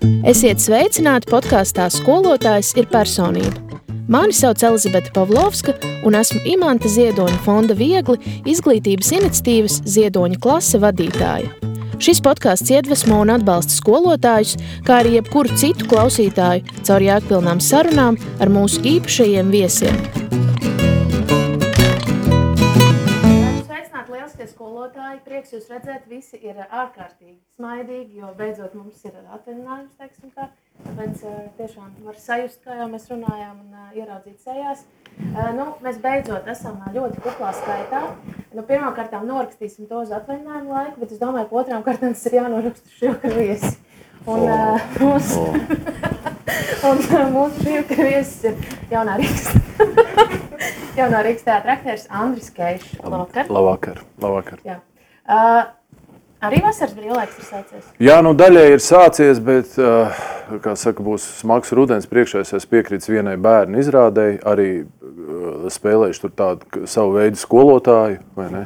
Esiet sveicināti podkāstā Skolotājs ir personība. Mani sauc Elizabete Pavlovska un esmu Imanta Ziedoņa fonda Viegli izglītības iniciatīvas Ziedoņa klase vadītāja. Šis podkāsts iedvesmo un atbalsta skolotājus, kā arī jebkuru citu klausītāju caur jēgpilnām sarunām ar mūsu īpašajiem viesiem. Sveicināti lieliskie skolotāji, prieks jūs redzēt, visi ir ārkārtīgi smaidīgi, jo beidzot mums ir atvaļinājums, teiksim tā. Tāpēc tiešām var sajust, kā jau mēs runājām, un ieraudzīt sejās. Mēs beidzot esam ļoti kuplā skaitā. Pirmkārtām norakstīsim to uz atvaļinājumu laiku, bet es domāju, ka otrām kārtām tas ir jānoraksta šovakar viesi. Mūsu šovakar viesis ir jaunā Rīgas teātra aktieris Andris Keišs. Labvakar. Labvakar. Jā. Arī vasaras brīvlaiks ir sācies? Jā, daļai ir sācies, bet, kā saka, būs smags rudens priekšā. Es piekrītu vienai bērnu izrādēji, arī spēlējuši tur tādu savu veidu skolotāju, vai ne?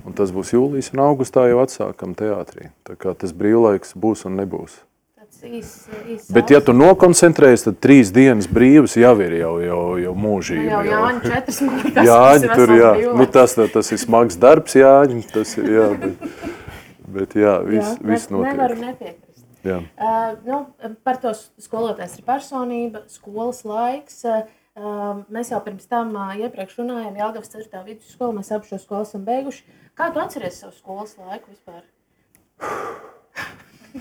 Un tas būs jūlijas un augustā jau atsākam teātrī. Tā kā tas brīvlaiks būs un nebūs. Tāds īs bet, ja tu nokoncentrējies, tad 3 dienas brīvas jau ir jau mūžība. Jau Jāņi 4 smagi, Jāņi tur, jā. Tas ir smags darbs, Jāņi, tas ir, jā, bet jā, viss notiek. Nevaru nepiekrist. Jā. Par to skolotājs ir personība, skolas laiks. Mēs jau pirms tam iepriekš runājām, Jelgavas 4. vidusskola, mēs abi šo skolu esam beiguši. Kā tu atceries savu skolas laiku vispār?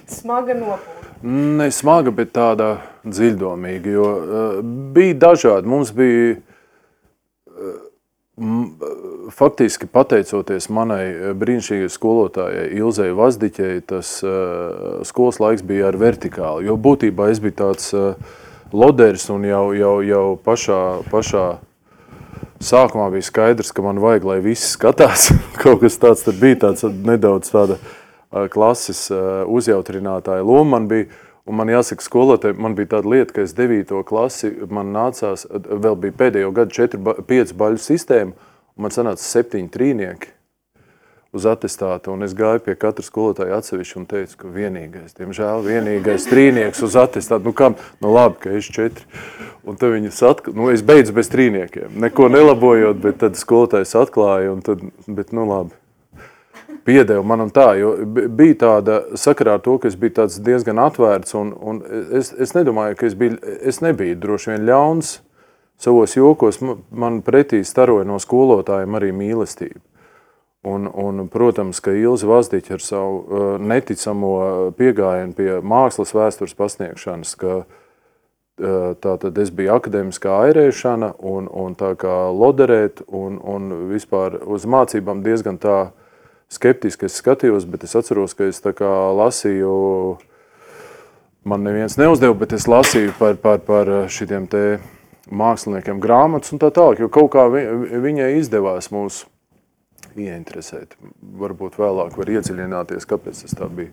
Smaga nopūta. Ne smaga, bet tāda dziļdomīga, jo bija dažādi. Mums bija faktiski pateicoties manai brīnišķīgai skolotājai Ilzei Vazdiķei, tas skolas laiks bija ar vertikāli, jo būtībā es biju tāds loderis un jau pašā sākumā bija skaidrs, ka man vajag, lai visi skatās. Kaut kas tāds tad bija, tāds nedaudz tāda klases uzjautrinātāja loma man bija. Un man jāsaka skolotāji, man bija tāda lieta, ka es 9. klasi, man nācās, vēl bija pēdējo gadu 5 baļu sistēma, un man sanāca 7 trīnieki uz atestātu, un es gāju pie katra skolotāja atsevišķi un teicu, ka vienīgais trīnieks uz atestātu, labi, ka es 4. Un tad viņas es beidzu bez trīniekiem, neko nelabojot, bet tad skolotājs atklāja, un tad, bet labi. Piedeva man un tā, jo bija tāda sakarā ar to, ka es biju tāds diezgan atvērts, un es nedomāju, ka es nebiju droši vien ļauns savos jokos, man pretī staroja no skolotājiem arī mīlestība. Un protams, ka Ilze Vazdiķa ar savu neticamo piegājienu pie mākslas vēstures pasniegšanas, ka tātad es biju akadēmiskā airēšana un tā kā loderēt un vispār uz mācībām diezgan tā skeptiski es skatījos, bet es atceros, ka es tā kā lasīju, man neviens neuzdeva, bet es lasīju par šitiem te māksliniekiem grāmatas un tā tālāk, jo kaut kā viņai izdevās mūs ieinteresēt. Varbūt vēlāk var iedziļināties, kāpēc tas tā bija.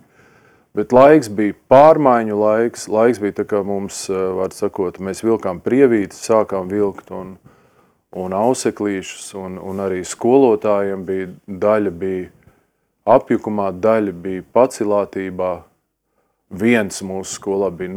Bet laiks bija pārmaiņu laiks bija tā kā mums, var sakot, mēs vilkām prievītes, sākām vilkt un auseklīšus, un arī skolotājiem daļa bija apjukumā, daļa bija pacilātībā. Viens mūsu skolā bija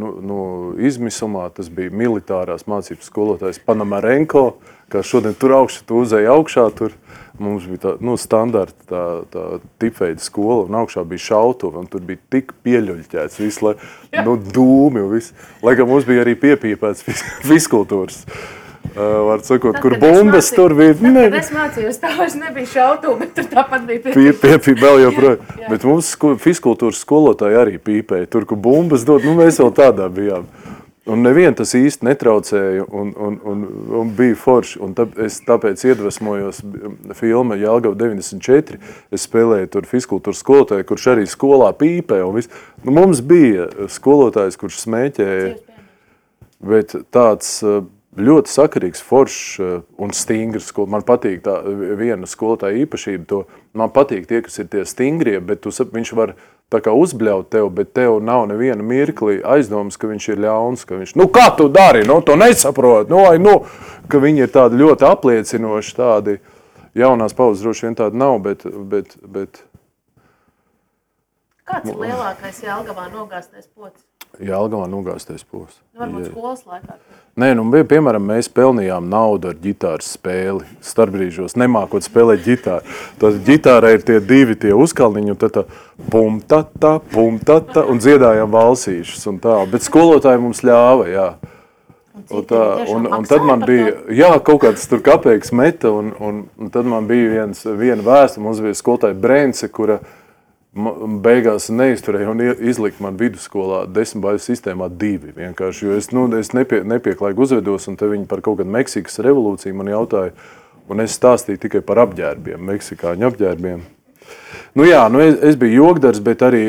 izmisumā, tas bija militārās mācības skolotājs Panamarenko, kā šodien tur augšā, tu uzēji augšā, tur mums bija tā, standarta tā tipveida skola, un augšā bija šautuva, un tur bija tik pieļuļķēts visu, dūmi un viss. Lai kā mums bija arī piepīpēts fiskultūras. Var sakot, kur bumbas tur bija. Kad es mācījos, tā vairs nebija šautuva, bet tur tāpat bija piepīpēts. Vēl joprojām. Bet mums fiskultūras skolotāji arī pīpēja. Tur, kur bumbas dod, mēs vēl tādā bijām. Un nevien tas īsti netraucēja un bija forši. Un tāpēc iedvesmojos filma Jelgava 94. Es spēlēju tur fiskultūras skolotāju, kurš arī skolā pīpēja. Mums bija skolotājs, kurš smēķēja, bet tāds ļoti sakarīgs, foršs un stingrs. Man patīk tā viena skolotāja īpašība. Man patīk tie, kas ir tie stingrie, bet viņš var tā kā uzbļaut tev, bet tev nav neviena mirkli aizdomas, ka viņš ir ļauns, ka viņš, kā tu dari, to nesaprot, ka viņi ir tādi ļoti apliecinoši, tādi jaunās paudzes droši vien tādi nav, bet Kāds ir lielākais Jelgavā nogāztais pocis? Jelgavā nogāztais posts. Varbūt skolas laikā. Nē, piemēram, mēs pelnījām naudu ar ģitāras spēli. Starpbrīžos nemākot spēlēt ģitāru. Tad ģitārā ir tie divi tie uzkalniņi, un tad tā pum-tata, un dziedājām valsīšus un tā. Bet skolotāji mums ļāva, jā. Un tad man bija, jā, kaut kāds tur kapeiks meta, un tad man bija viena vēsta, mums bija skolotāja Brence, kura beigās neizturēja un izlika man vidusskolā 10 baiļu sistēmā 2 vienkārši, jo es nepieklājīgi uzvedos, un te viņi par kaut kādu Meksikas revolūciju man jautāja, un es stāstīju tikai par apģērbiem, meksikāņu apģērbiem. Nu jā, es biju jogdars, bet arī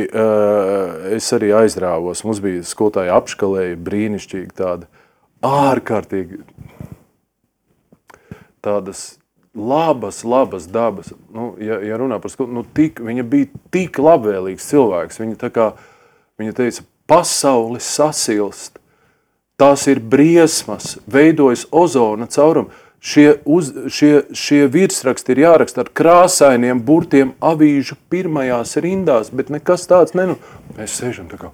es arī aizrāvos. Mums bija skolotāja apškalēja, brīnišķīgi tāda, ārkārtīgi tādas labas dabas. Nu, ja runā par skolu, viņa bija tik labvēlīgs cilvēks. Viņa teica, pasaule sasilst, tās ir briesmas, veidojas ozona caurumu. Šie virsraksti ir jāraksta ar krāsainiem burtiem avīžu pirmajās rindās, bet nekas tāds Mēs sēžam tā kā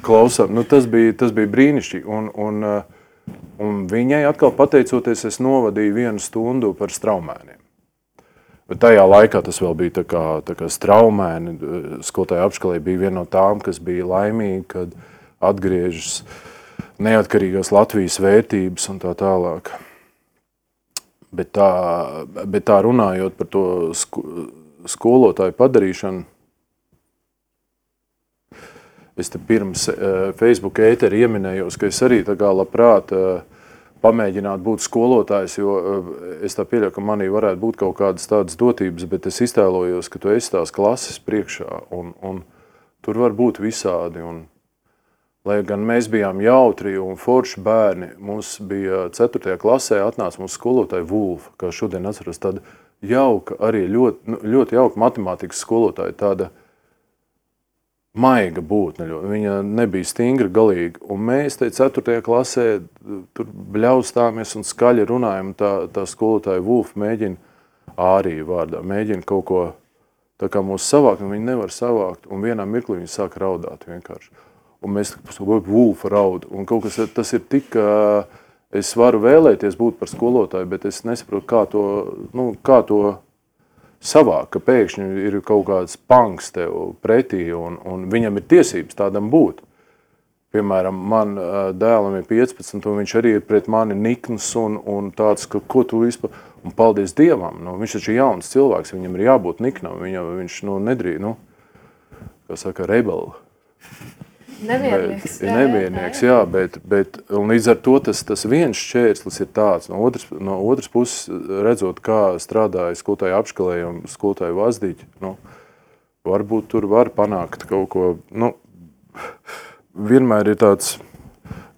klausām. Tas bija brīnišķīgi. Un viņai atkal pateicoties, es novadīju 1 stundu par straumēniem. Bet tajā laikā tas vēl bija tā kā straumēni. Skolotāja apškalē bija viena no tām, kas bija laimīga, kad atgriežas neatkarīgās Latvijas vērtības un tā tālāk. Bet tā runājot par to skolotāju padarīšanu, es te pirms Facebook ēteri ieminējos, ka es arī tā kā labprāt pamēģinātu būt skolotājs, jo es tā pieļauju, ka manī varētu būt kaut kādas tādas dotības, bet es iztēlojos, ka tu esi tās klases priekšā, un tur var būt visādi. Lai gan mēs bijām jautri un forši bērni, mums bija 4. klasē atnāca mūsu skolotāja Vulfa, kā šodien atceros, tāda jauka, arī ļoti jauka matemātikas skolotāja, tāda maiga būtne, viņa nebija stingra galīgi, un mēs te 4. klasē tur bļaustāmies un skaļi runājam, tā skolotāja Vulfa mēģina āriju vārdā, mēģina kaut ko tā kā mūs savākt, un viņi nevar savākt, un vienā mirklī viņi sāk raudāt vienkārši. Un mēs Vulfa raud, un kaut kas tas ir tik, es varu vēlēties būt par skolotāju, bet es nesaprotu, kā to savāk, ka pēkšņi ir kaut kāds panks tev pretī, un viņam ir tiesības tādam būt. Piemēram, man dēlam ir 15, un viņš arī ir pret mani nikns un tāds, ka ko tu vispār, un paldies Dievam, viņš taču ir jauns cilvēks, viņam ir jābūt niknam, viņš nedrīd, kā saka, rebeli. Nemiernieks, jā, bet un līdz ar to tas viens šķērslis ir tāds. No otras puses, redzot, kā strādāja skolotāja apškalēja un skolotāja vazdiķi, varbūt tur var panākt kaut ko, vienmēr ir tāds,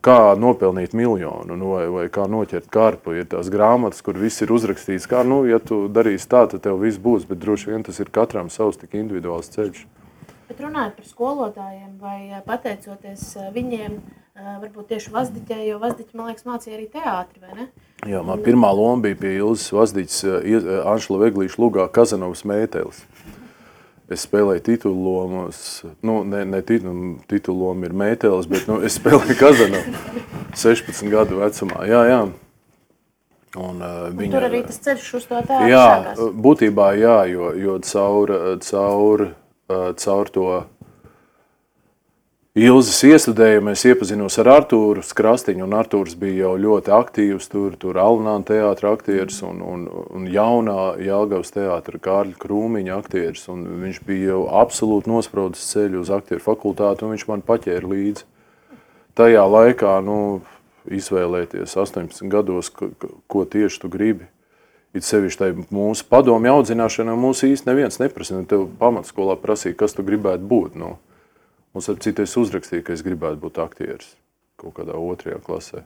kā nopelnīt miljonu, vai kā noķert karpu. Ir tās grāmatas, kur viss ir uzrakstīts, kā, ja tu darīsi tā, tad tev viss būs, bet droši vien tas ir katram savs tik individuāls ceļš. Bet runājot par skolotājiem vai pateicoties viņiem, varbūt tieši Vazdiķai, jo Vazdiķi, man liekas, mācīja arī teātri, vai ne? Jā, man pirmā loma bija pie Ilzes Vazdiķis Anšla Veglīša lugā Kazanovas mētelis. Es spēlēju titulu lomas, ne titulu loma ir mētelis, bet es spēlēju Kazanovu 16 gadu vecumā, jā. Un tur arī tas ceļš uz to teātri sākās? Jā, būtībā jā, jo caur to Ilzes iestudējumu es iepazinos ar Artūru Skrastiņu, un Artūrs bija jau ļoti aktīvs, tur Alnāna teātra aktieris un jaunā Jelgavas teātra Kārļa Krūmiņa aktieris, un viņš bija jau absolūti nospraudis ceļu uz aktieru fakultāti, un viņš man paķēra līdzi. Tajā laikā, izvēlēties 18 gados, ko tieši tu gribi. It sevišķi tai mūsu padomju audzināšanā mūsu īsti neviens neprasa. Tev pamatskolā prasīja, kas tu gribētu būt. Mums ar citu es uzrakstīju, ka es gribētu būt aktieris kaut kādā 2. klasē.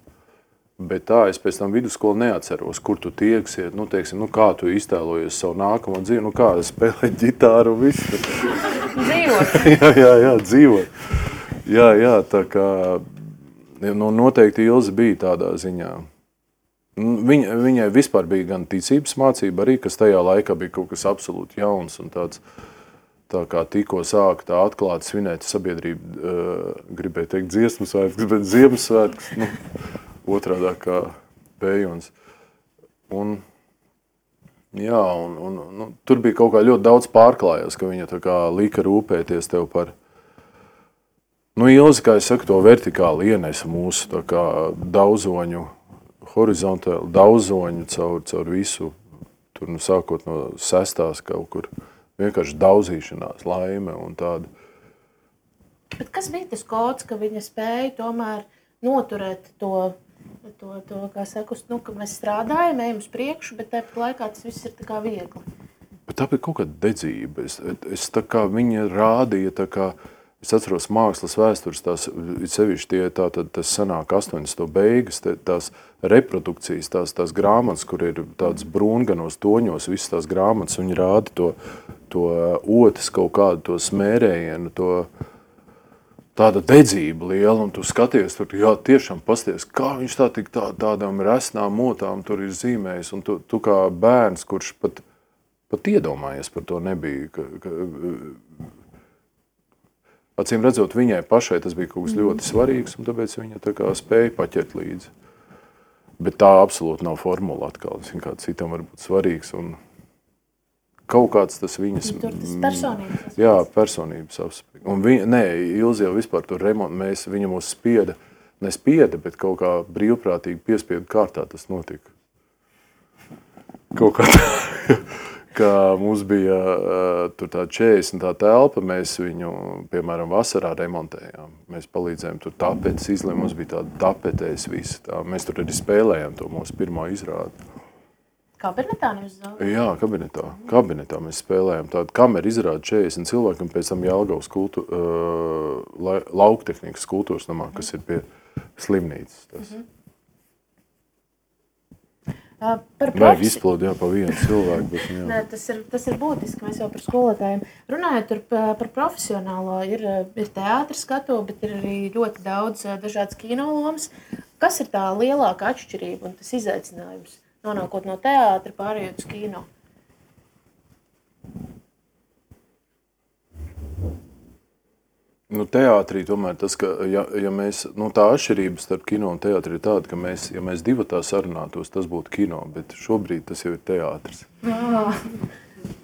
Bet tā es pēc tam vidusskolu neatceros, kur tu tieksies, kā tu iztēlojies savu nākamo dzīvi, kā spēlēt ģitāru un visu. Dzīvot. jā, dzīvot. Jā, tā kā noteikti Ilze bija tādā ziņā. Viņai vispār bija gan ticības mācība arī, kas tajā laikā bija kaut kas absolūti jauns un tāds tā kā tikko sāka tā atklāti svinēt sabiedrība, gribēja teikt dziesmu svētkus, bet Ziemassvētkus, otrādā kā Pējuns. Un tur bija kaut kā ļoti daudz pārklājās, ka viņa tā kā lika rūpēties tev par, Ilzi, kā es saku, to vertikāli ienesa mūsu tā kā daudzoņu, horizontāli daudzoņu caur visu, tur sākot no 6. kaut kur, vienkārši daudzīšanās, laime un tāda. Bet kas bija tas kods, ka viņa spēja tomēr noturēt to kā saku, ka mēs strādājam, ejam uz priekšu, bet tāpat laikā tas viss ir tā kā viegli? Bet tā bija kaut kāda dedzība. Es tā kā viņa rādīja, tā kā, es atceros mākslas vēstures, tās sevišķi tas sanāk 80. beigas, tās reprodukcijas, tās grāmatas, kur ir tāds brūnganos toņos, visas tās grāmatas, viņi rāda to otis kaut kādu, to smērējienu, tāda dedzība liela, un tu skaties, tur, tiešām pasties, kā viņš tādām resnām motām tur ir zīmējis, un tu kā bērns, kurš pat iedomājies par to nebija, acīm redzot, viņai pašai tas bija kaut kas ļoti svarīgs, un tāpēc viņa tā kā spēja paķert līdzi. Bet tā absolūti nav formula atkal, kā citam var būt svarīgs, un kaut kāds tas viņas... Tur tas personības aspekts. Jā, personības aspekts. Un Ilzi jau vispār tur viņa mūs nespieda, bet kaut kā brīvprātīgi piespiedu kārtā tas notika. Kaut kā ka mums bija tur tā 40 tā telpa, mēs viņu, piemēram, vasarā remontējām. Mēs palīdzējām tur tapetes izlēm, mums bija tāda tapetēs visi. Mēs tur arī spēlējām to mūsu pirmo izrādi. Kabinetā nevis zālē? Jā, kabinetā mēs spēlējām tādu kameru izrādi 40 cilvēkiem, pēc tam Jelgavas lauktehnikas kultūras namā, kas ir pie slimnīcas. Vajag izplaudīt pa vienu cilvēku. Bet, Nē, tas ir būtiski, mēs jau par skolotājiem. Runājot par profesionālo, ir teātris skatuve, bet ir arī ļoti daudz dažādas kinolomas. Kas ir tā lielākā atšķirība un tas izaicinājums, nonākot no teātra pārējot uz kino? Teātrī tomēr tas, ka ja mēs, tā atšķirība starp kino un teātri ir tāda, ka ja mēs divatā sarunātos, tas būtu kino, bet šobrīd tas jau ir teātris.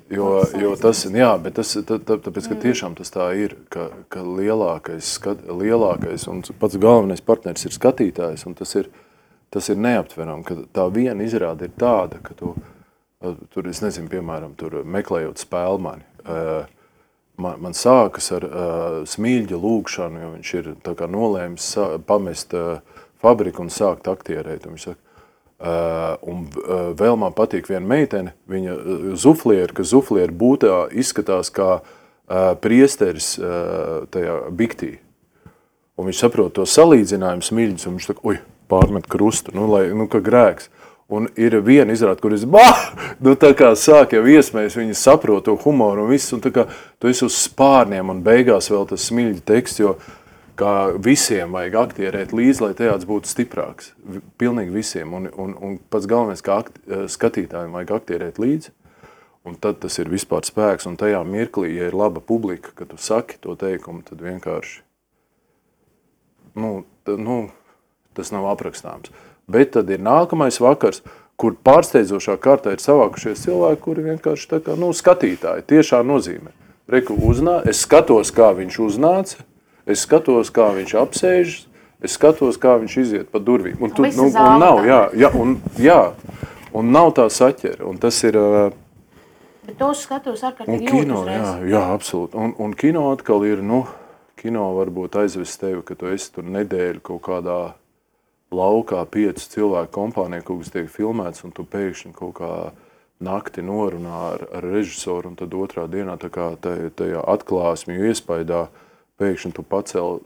Jo tas, bet tāpēc, ka tiešām tas tā ir, ka lielākais un pats galvenais partneris ir skatītājs, un tas ir neaptveram, ka tā viena izrāde ir tāda, ka tur, es nezinu, piemēram, tur meklējot spēlmani, man sākas ar Smilģa lūgšanu, jo viņš ir tā kā nolēmis pamest fabriku un sākt aktierēt. Un viņš saka, un vēl man patīk viena meitene, viņa Zuflieri, ka Zuflieri būtā izskatās kā priesteris tajā biktī. Un viņš saprot to salīdzinājumu Smilģis, un viņš saka, pārmet krustu, ka grēks. Un ir viena izrāde, kur tā kā sāk jau iesmējas, viņi saprot to humoru un viss, un tā kā tu esi uz spārniem, un beigās vēl tas Smilģa teksts, jo kā visiem vajag aktierēt līdzi, lai teātris būtu stiprāks. Pilnīgi visiem, un pats galvenais, kā skatītājiem vajag aktierēt līdzi, un tad tas ir vispār spēks, un tajā mirklī, ja ir laba publika, kad tu saki to teikumu, tad vienkārši, tas nav aprakstāms. Bet tad ir nākamais vakars, kur pārsteidzošā kārtā ir savākušies cilvēki, kuri vienkārši tā kā, skatītāji, tiešā nozīmē. Es skatos, kā viņš uznāca, es skatos, kā viņš apsēžas, es skatos, kā viņš iziet pa durvīm. Un nav tā saķera, un tas ir... Bet tos skatos ārkārtīgi jūtas reiz. Jā, absolūti. Un kino atkal ir, kino varbūt aizvest tevi, ka tu esi tur nedēļu kaut kādā laukā 5 cilvēku kompānija, kaut kas tiek filmēts, un tu pēkšņi kaut kā nakti norunā ar režisoru, un tad otrā dienā tā kā tajā atklāsmju iespaidā pēkšņi tu pacēl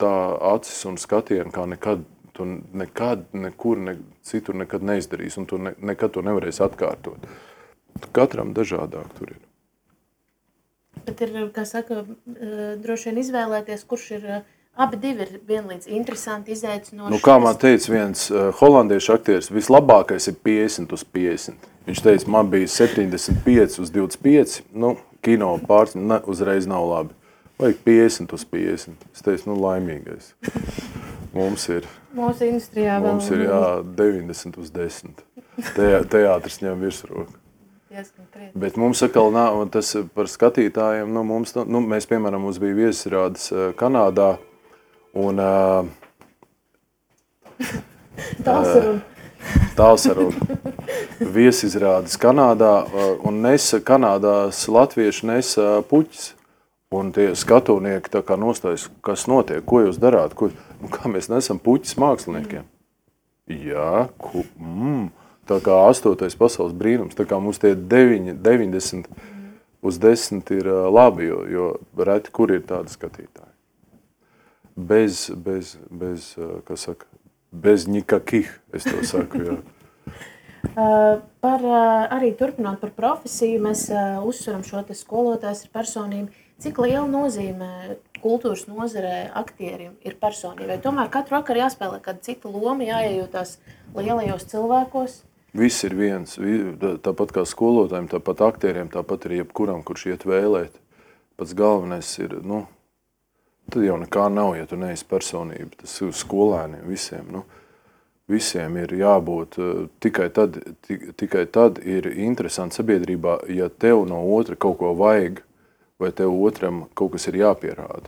tā acis un skatienu, kā nekad nekur citur nekad neizdarīs, un tu nekad to nevarēsi atkārtot. Katram dažādāk tur ir. Bet ir, kā saka, droši vien izvēlēties, kurš ir... Abi divi ir vienlīdz interesanti, izaicinoši. Kā man teica viens holandiešu aktieris, vislabākais ir 50 uz 50. Viņš teica, man bija 75 uz 25. kino uzreiz nav labi. Vajag 50 uz 50. Es teicu, laimīgais. Mums ir industrijā mums ir 90 uz 10. Teātris ņem virsroku. Bet mums atkal nav, tas par skatītājiem, mēs, piemēram, mums bija viesizrādes Kanādā, un Tālsaruna. Viesizrādes Kanādā, un Kanādās latvieši nesa puķis. Un tie skatūnieki tā kā nostājas, kas notiek, ko jūs darāt, kā mēs nesam puķis māksliniekiem. Jā, tā kā 8. pasaules brīnums, tā kā mums tie 90 uz 10 ir labi, jo reti, kur ir tādi skatītāji. Bez nikakih, es to saku, jā. Arī turpināt par profesiju, mēs uzsveram šo te skolotājs ir personība. Cik liela nozīme kultūras nozarē aktierim ir personībai? Tomēr katru vakaru jāspēlē kāda cita loma, jāiejūtās lielajos cilvēkos. Viss ir viens, tāpat kā skolotājiem, tāpat aktieriem, tāpat arī jebkuram, kurš iet vēlēt. Pats galvenais ir, tad jau nekā nav, ja tu neesi personība. Tas ir skolēniem visiem, Visiem ir jābūt, tikai tad ir interesanti sabiedrībā, ja tev no otra kaut ko vajag, vai tev otram kaut kas ir jāpierāda.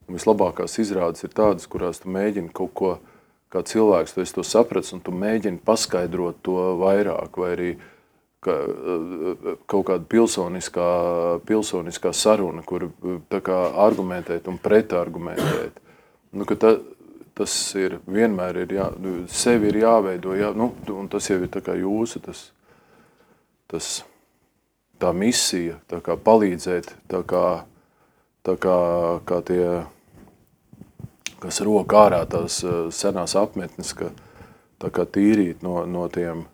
Un vislabākās izrādes ir tādas, kurās tu mēģini kaut ko, kā cilvēks, tu esi to saprats, un tu mēģini paskaidrot to vairāk, vai arī kaut kāda pilsoniskā saruna, kur tā kā argumentēt un pretargumentēt. Tas ir vienmēr sevi ir jāveido, un tas jau ir tā kā jūsu, tā misija, tā kā palīdzēt, tā kā tie, kas rok ārā tās senās apmetnes, tā kā tīrīt no tiem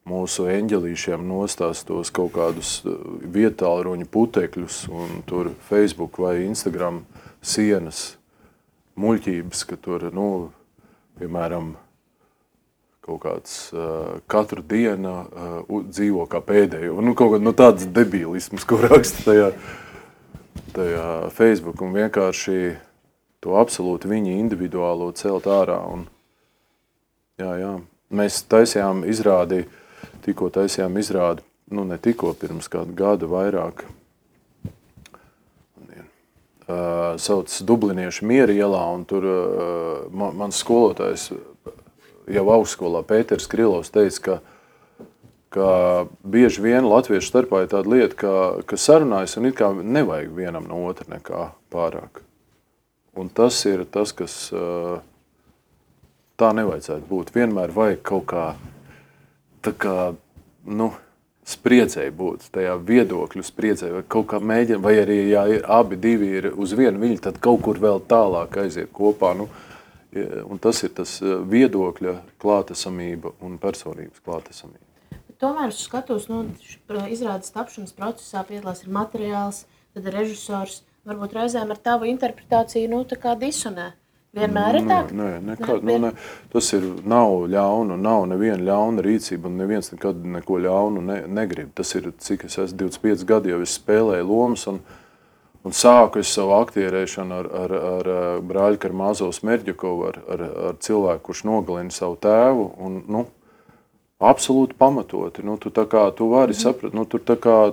mūsu eņģelīšiem nostās tos kaut kādus vietālruņu putekļus un tur Facebook vai Instagram sienas, muļķības, ka tur, piemēram, kaut kāds katru dienu dzīvo kā pēdējo. Kaut kāds tāds debilisms, ko raksta tajā Facebook, un vienkārši to absolūti viņa individuālo celt ārā. Jā. Mēs taisījām izrādi, ne tikko pirms kādu gadu vairāk, sauc Dubliniešu Miera ielā, un tur mans skolotājs jau augstskolā Pēters Krilovs teica, ka bieži vien latviešu starpā ir tāda lieta, ka sarunājas un it kā nevajag vienam no otra nekā pārāk. Un tas ir tas, kas tā nevajadzētu būt. Vienmēr vajag kaut kā, spriedzēji būt, tajā viedokļu spriedzēji, vai kaut kā mēģina, vai arī, ja abi divi ir uz vienu viļņu, tad kaut kur vēl tālāk aiziet kopā. Un tas ir tas viedokļa klātesamība un personības klātesamība. Tomēr es skatos, izrādes tapšanas procesā piedalās ir materiāls, tad ir režisors, varbūt reizēm ar tavu interpretāciju, tā kā disonē. Vienmēr ir tā? Nē, tas nav ļaunu, nav neviena ļauna rīcība, un neviens nekad neko ļaunu negrib. Tas ir, cik es esmu 25 gadi, jau es spēlēju lomas, un sāku es savu aktierēšanu ar brāļu Karmāzovu Smerdļakovu, ar cilvēku, kurš nogalina savu tēvu, un, absolūti pamatoti. Tu vari saprast,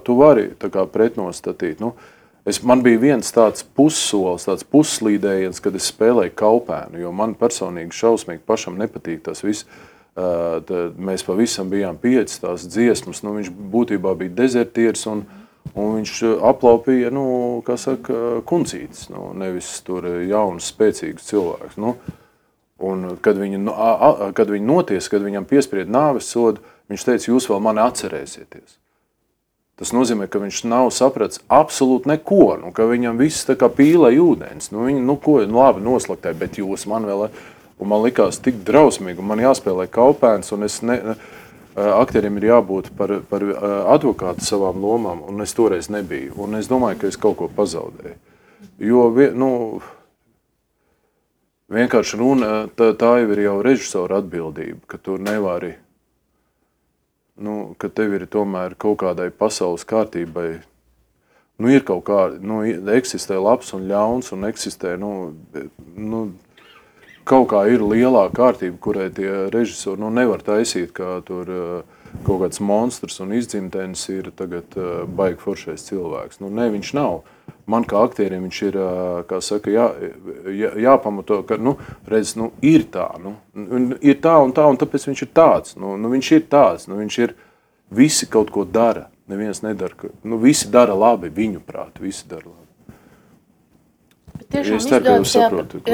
tu vari pretnostatīt. Man bija viens tāds pussolis, tāds pusslīdējiens, kad es spēlēju Kaupēnu, jo man personīgi šausmīgi pašam nepatīk tas viss. Mēs pavisam bijām 5 tās dziesmas, viņš būtībā bija dezertieris un viņš aplaupīja, kuncītis, nevis tur jauns, spēcīgs cilvēks. Un kad viņi notiesa, kad viņam piespried nāves sodu, viņš teica, jūs vēl mani atcerēsieties. Tas nozīmē, ka viņš nav sapratis absolūti neko, ka viņam viss tā kā pīlēja ūdens. Labi, noslaktēja, bet jūs man vēl... Un man likās tik drausmīgi, un man jāspēlē Kaupēns, un aktieriem ir jābūt par advokātu savām lomām, un es toreiz nebiju. Un es domāju, ka es kaut ko pazaudēju. Jo, vienkārši runa, tā jau ir jau režisora atbildība, ka tu nevari... ka tev ir tomēr kaut kādai pasaules kārtībai Ir kaut kā, eksistē labs un ļauns, un eksistē, kaut kā ir lielā kārtība, kurai tie režisori, nevar taisīt, kā tur kaut kāds monstrs un izdzimtenis ir tagad baigi foršais cilvēks. Ne, viņš nav. Man kā aktierim viņš ir, kā saka, jāpamato, ka, redz, ir tā, ir tā, un tāpēc viņš ir tāds. Viņš ir tāds, viņš ir, visi kaut ko dara, neviens nedara, visi dara labi, viņu prāt, visi dara labi. Es ceru, ka jūs saprotat,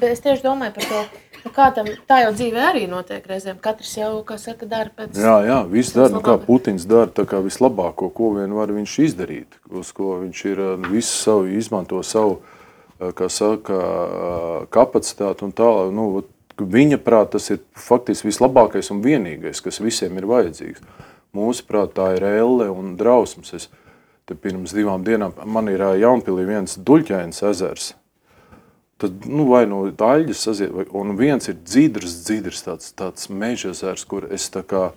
es tieši domāju par to, kā tam, tā jau dzīvē arī notiek reizēm. Katrs jau, kā saka, dara pēc... Jā, viss dara, kā Putins dara, tā kā vislabāko, ko vien var viņš izdarīt, uz ko viņš ir visu savu, izmanto savu, kā saka, kapacitāti un tālāk. Viņa prāt, tas ir faktiski vislabākais un vienīgais, kas visiem ir vajadzīgs. Mūsu prāt, tā ir elle un drausmas. Te pirms 2 dienām man ir Jaunpilī viens Duļķainas ezers. Tad, vai no Daļģas saziet, un viens ir dzidrs tāds meža ezers, kur es tā kā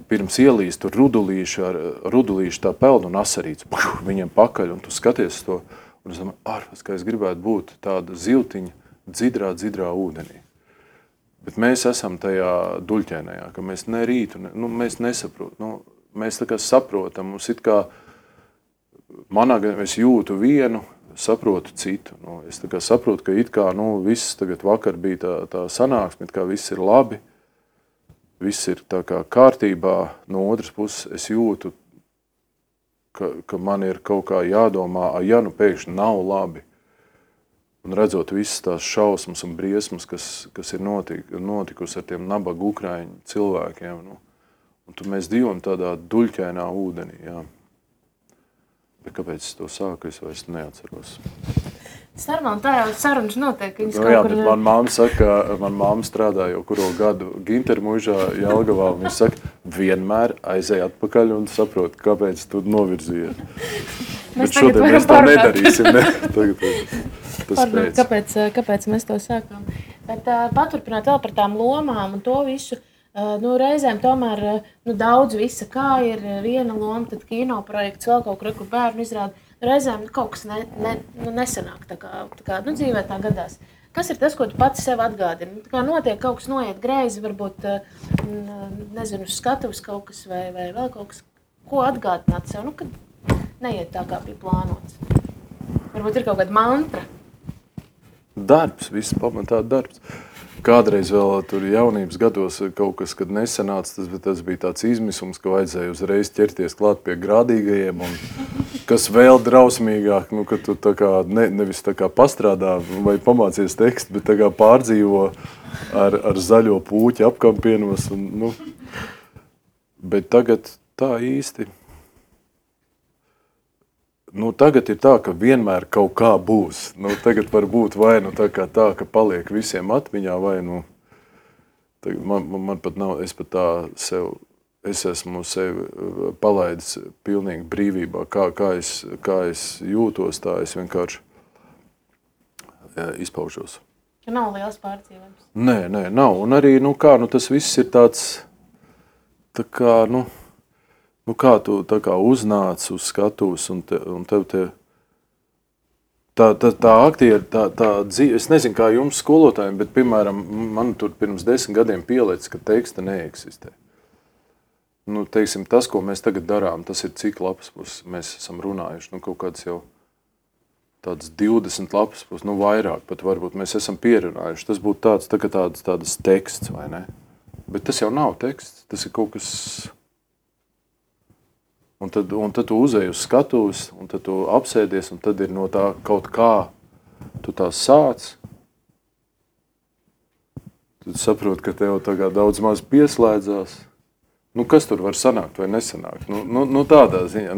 pirms ielīst tur rudulīšu tā peld un asarīts, viņiem pakaļ, un tu skaties to, un es domāju, ārpēc, ka es gribētu būt tāda ziltiņa dzidrā ūdenī. Bet mēs esam tajā Duļķainajā, ka mēs ne rītu, mēs nesaprotam, mēs tā kā saprotam, mums it kā, manā gadījumā es jūtu vienu, saprotu citu. Es tā kā saprotu, ka it kā, viss tagad vakar bija tā sanāksme, it kā viss ir labi, viss ir tā kā kārtībā. No otras puses es jūtu, ka man ir kaut kā jādomā, ja pēkšņi nav labi. Un redzot visas tās šausmas un briesmas, kas ir notikusi ar tiem nabaga ukraiņu cilvēkiem. Un tad mēs dzīvojam tādā duļķainā ūdenī, jā. Bet kāpēc es to sāku, es vairs neatceros. Sarunā, tā jau sarunas notiek. Jā, bet man māma saka, man māma strādā jau kuro gadu Gintermuižā, Jelgavā, un viņa saka, vienmēr aizej atpakaļ un saprot, kāpēc tu novirzījies. Bet šodien mēs to nedarīsim, ne? Tagad kāpēc mēs to sākām. Bet paturpināt vēl par tām lomām un to visu. Reizēm tomēr daudz visa, kā ir viena loma, tad kino projekts, vēl kaut kur bērnu izrāda. Reizēm kaut kas nesanāk, tā kā dzīvē tā gadās. Kas ir tas, ko tu pats sev atgādini? Tā kā notiek kaut kas noiet greizi, varbūt, nezinu, uz skatuves kaut kas vai vēl kaut kas, ko atgādināt sev, kad neiet tā, kā bija plānots. Varbūt ir kaut kāda mantra. Darbs, viss pamatā darbs. Kādreiz vēl tur jaunības gados kaut kas, kad nesanāca, bet tas bija tāds izmisums, ka vajadzēja uzreiz ķerties klāt pie grādīgajiem, un kas vēl drausmīgāk, ka tu tā kā nevis tā kā pastrādā vai pamācies tekstu, bet tā kā pārdzīvo ar zaļo pūķi apkampienos. Bet tagad tā īsti. Tagad ir tā, ka vienmēr kaut kā būs. Tagad var būt vai tā, ka paliek visiem atmiņā, vai man pat nav, es pat tā sev, es esmu sevi palaidis pilnīgi brīvībā, kā es jūtos, tā es vienkārši izpaužos. Nav liels pārdzīvojums? Nē, nav. Un arī, tas viss ir tāds, tā kā, kā tu tā kā uznāc uz skatuves un tev tā aktieri, tā dzīve, es nezinu, kā jums skolotājiem, bet, piemēram, man tur pirms 10 gadiem pielicis, ka teksta neeksistē. Teiksim, tas, ko mēs tagad darām, tas ir cik lapas puses mēs esam runājuši, kaut kāds jau tāds 20 lapas puses, vairāk pat varbūt mēs esam pierunājuši. Tas būtu tāds teksts, vai ne? Bet tas jau nav teksts, tas ir kaut kas... Un tad tu uzej uz skatuves, un tad tu apsēdies, un tad ir no tā kaut kā, tu tā sāc. Tad saproti, ka tev tagad daudz maz pieslēdzās. Kas tur var sanākt vai nesanākt? Tādā ziņā,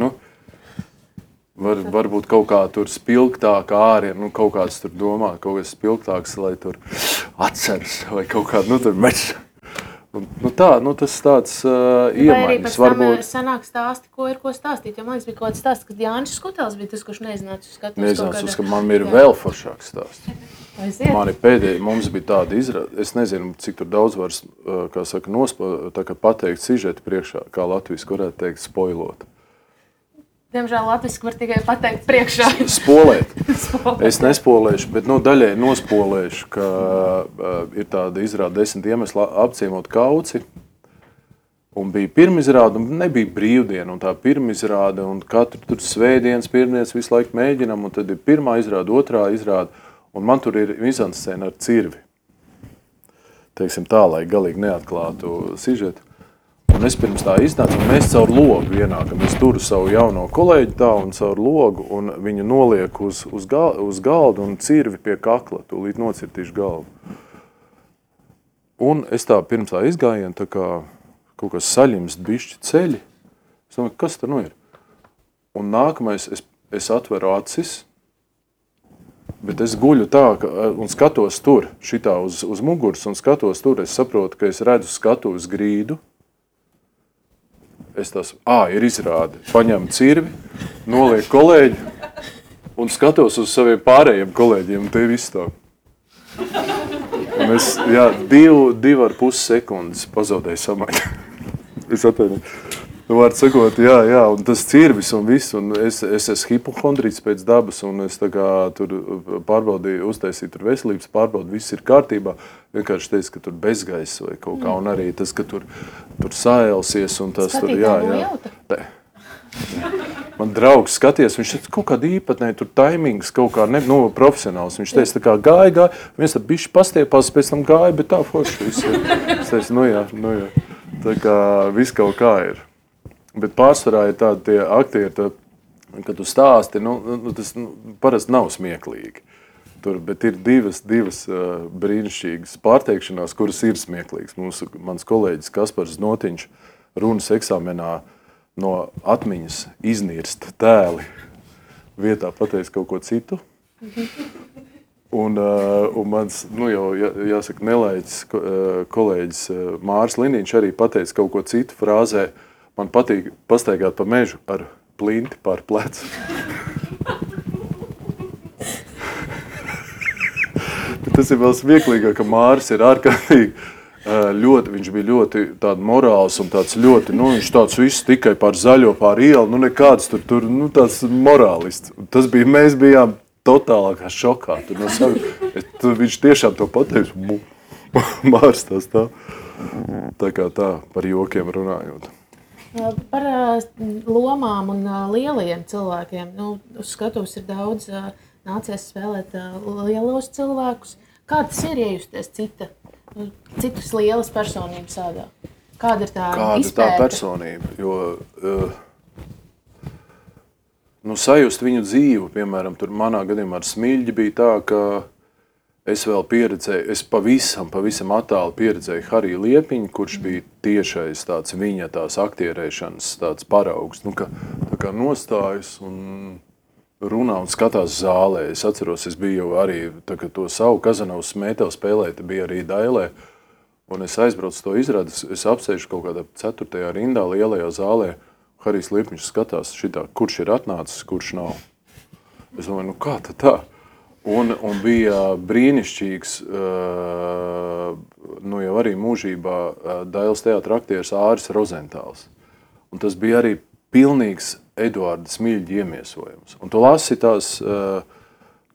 varbūt kaut kā tur spilgtāk ārien, kaut kāds tur domā, kaut kas spilgtāks, lai tur atceras, vai kaut kādu, tur mečs. Tas tāds iemaiņas. Vai arī pēc tam sanāk stāsti, ko ir ko stāstīt. Jo man liekas, bija kaut kāds stāsts, kad Jānis Skutels bija tas, kurš neizināca uz skatuves. Ka man ir vēl foršāks stāsts. Mani pēdējie, mums bija tāda izrāde, es nezinu, cik tur daudz var, kā saka, pateikt sižetu priekšā, kā latviski varētu teikt, spoilot. Diemžēl latviski var tikai pateikt priekšā. Spolēt. Es nespolēšu, bet daļai nospolēšu, ka ir tāda izrāda 10 iemesli apciemot Kauci. Un bija pirmizrāde, un nebija brīvdiena, un tā pirmizrāde, un katru tur svētdienas, pirmdienas visu laiku mēģinam, un tad ir pirmā izrāde, otrā izrāde, un man tur ir mizanscēna ar cirvi. Teiksim tā, lai galīgi neatklātu sižetu. Un es pirms tā iznācu, un mēs caur logu ienākam. Es turu savu jauno kolēģi tā un caur logu, un viņu noliek uz galdu un cirvi pie kakla, tūlīt nocirtīšu galvu. Un es tā pirms tā izgājienu, tā kā kaut kas saļimst bišķi ceļi. Es domāju, kas tur ir? Un nākamais, es atveru acis, bet es guļu tā, un skatos tur, šitā uz muguras, un skatos tur, es saprotu, ka es redzu skatuves grīdu. Es tās, ir izrāde, paņemu cirvi, nolieku kolēģi un skatos uz saviem pārējiem kolēģiem, un te ir viss tā. Un es, 2,5 sekundes pazaudēju samaiņu. Es atvainu. Var sakot, jā, un tas cirvis un viss, un es esmu hipohondrīts pēc dabas, un es tā kā tur pārbaudīju, uztaisīju tur veselības pārbaudi, viss ir kārtībā. Vienkārši teicu, ka tur bezgaiss vai kaut kā, un arī tas, ka tur saēlsies, un tas tur, jā. Man draugs skaties, viņš teica, kaut kāda īpatnē, tur taimings kaut kā profesionāls. Viņš teica, tā kā gāja, viens tā bišķi pastiepās, pēc tam gāja, bet tā forši viss ir. Es teicu, jā. Tā kā viss kaut kā ir. Bet pārsvarā ir tādi tie aktieri, kad tu stāsti, tas parasti nav smieklīgi. Bet ir divas brīnišķīgas pārteikšanās, kuras ir smieklīgas. Mans kolēģis Kaspars Znotiņš runas eksāmenā no atmiņas iznirst tēli vietā pateiks kaut ko citu. Un mans, jau jāsaka, nelaiķis kolēģis Māris Liniņš arī pateica kaut ko citu frāzē. Man patīk pastaigāt pa mežu ar plinti pār plecu. Tas ir vēl smieklīgāk, ka Māris ir ārkārtīgi viņš bija ļoti tāda morāls un tāds ļoti, viņš tāds viss tikai pār zaļo, pār ielu, nekāds tur, tāds morālists. Mēs bijām totālākā šokā. Viņš tiešām to pateica, Māris tās tā. Tā kā tā, par jokiem runājot. Par lomām un lielajiem cilvēkiem. Uz skatuves ir daudz nācies spēlēt lielos cilvēkus. Kā tas ir iejusties citas lielas personības ādā? Kāda ir tā izpēta? Kāda tā personība? Jo sajust viņu dzīvu, piemēram, tur manā gadījumā ar Smiļģi bija tā, ka es vēl pieredzēju, es pavisam attāli pieredzēju Hariju Liepiņu, kurš bija tiešais tāds viņa tās aktierēšanas tāds paraugs, tā kā nostājas un runā un skatās zālē. Es atceros, es biju jau arī, tā kā to savu Kazanovas Smētevu spēlēt, bija arī Dailē, un es aizbraucu to izrādi, es apsēžu kaut kādā 4. rindā lielajā zālē, Harijs Liepiņš skatās šitā, kurš ir atnācis, kurš nav. Es domāju, kā tā? Un bija brīnišķīgs, jau arī mūžībā Dailes teātra aktieris Āris Rozentāls. Un tas bija arī pilnīgs Eduarda Smiļģa iemiesojums. Un tu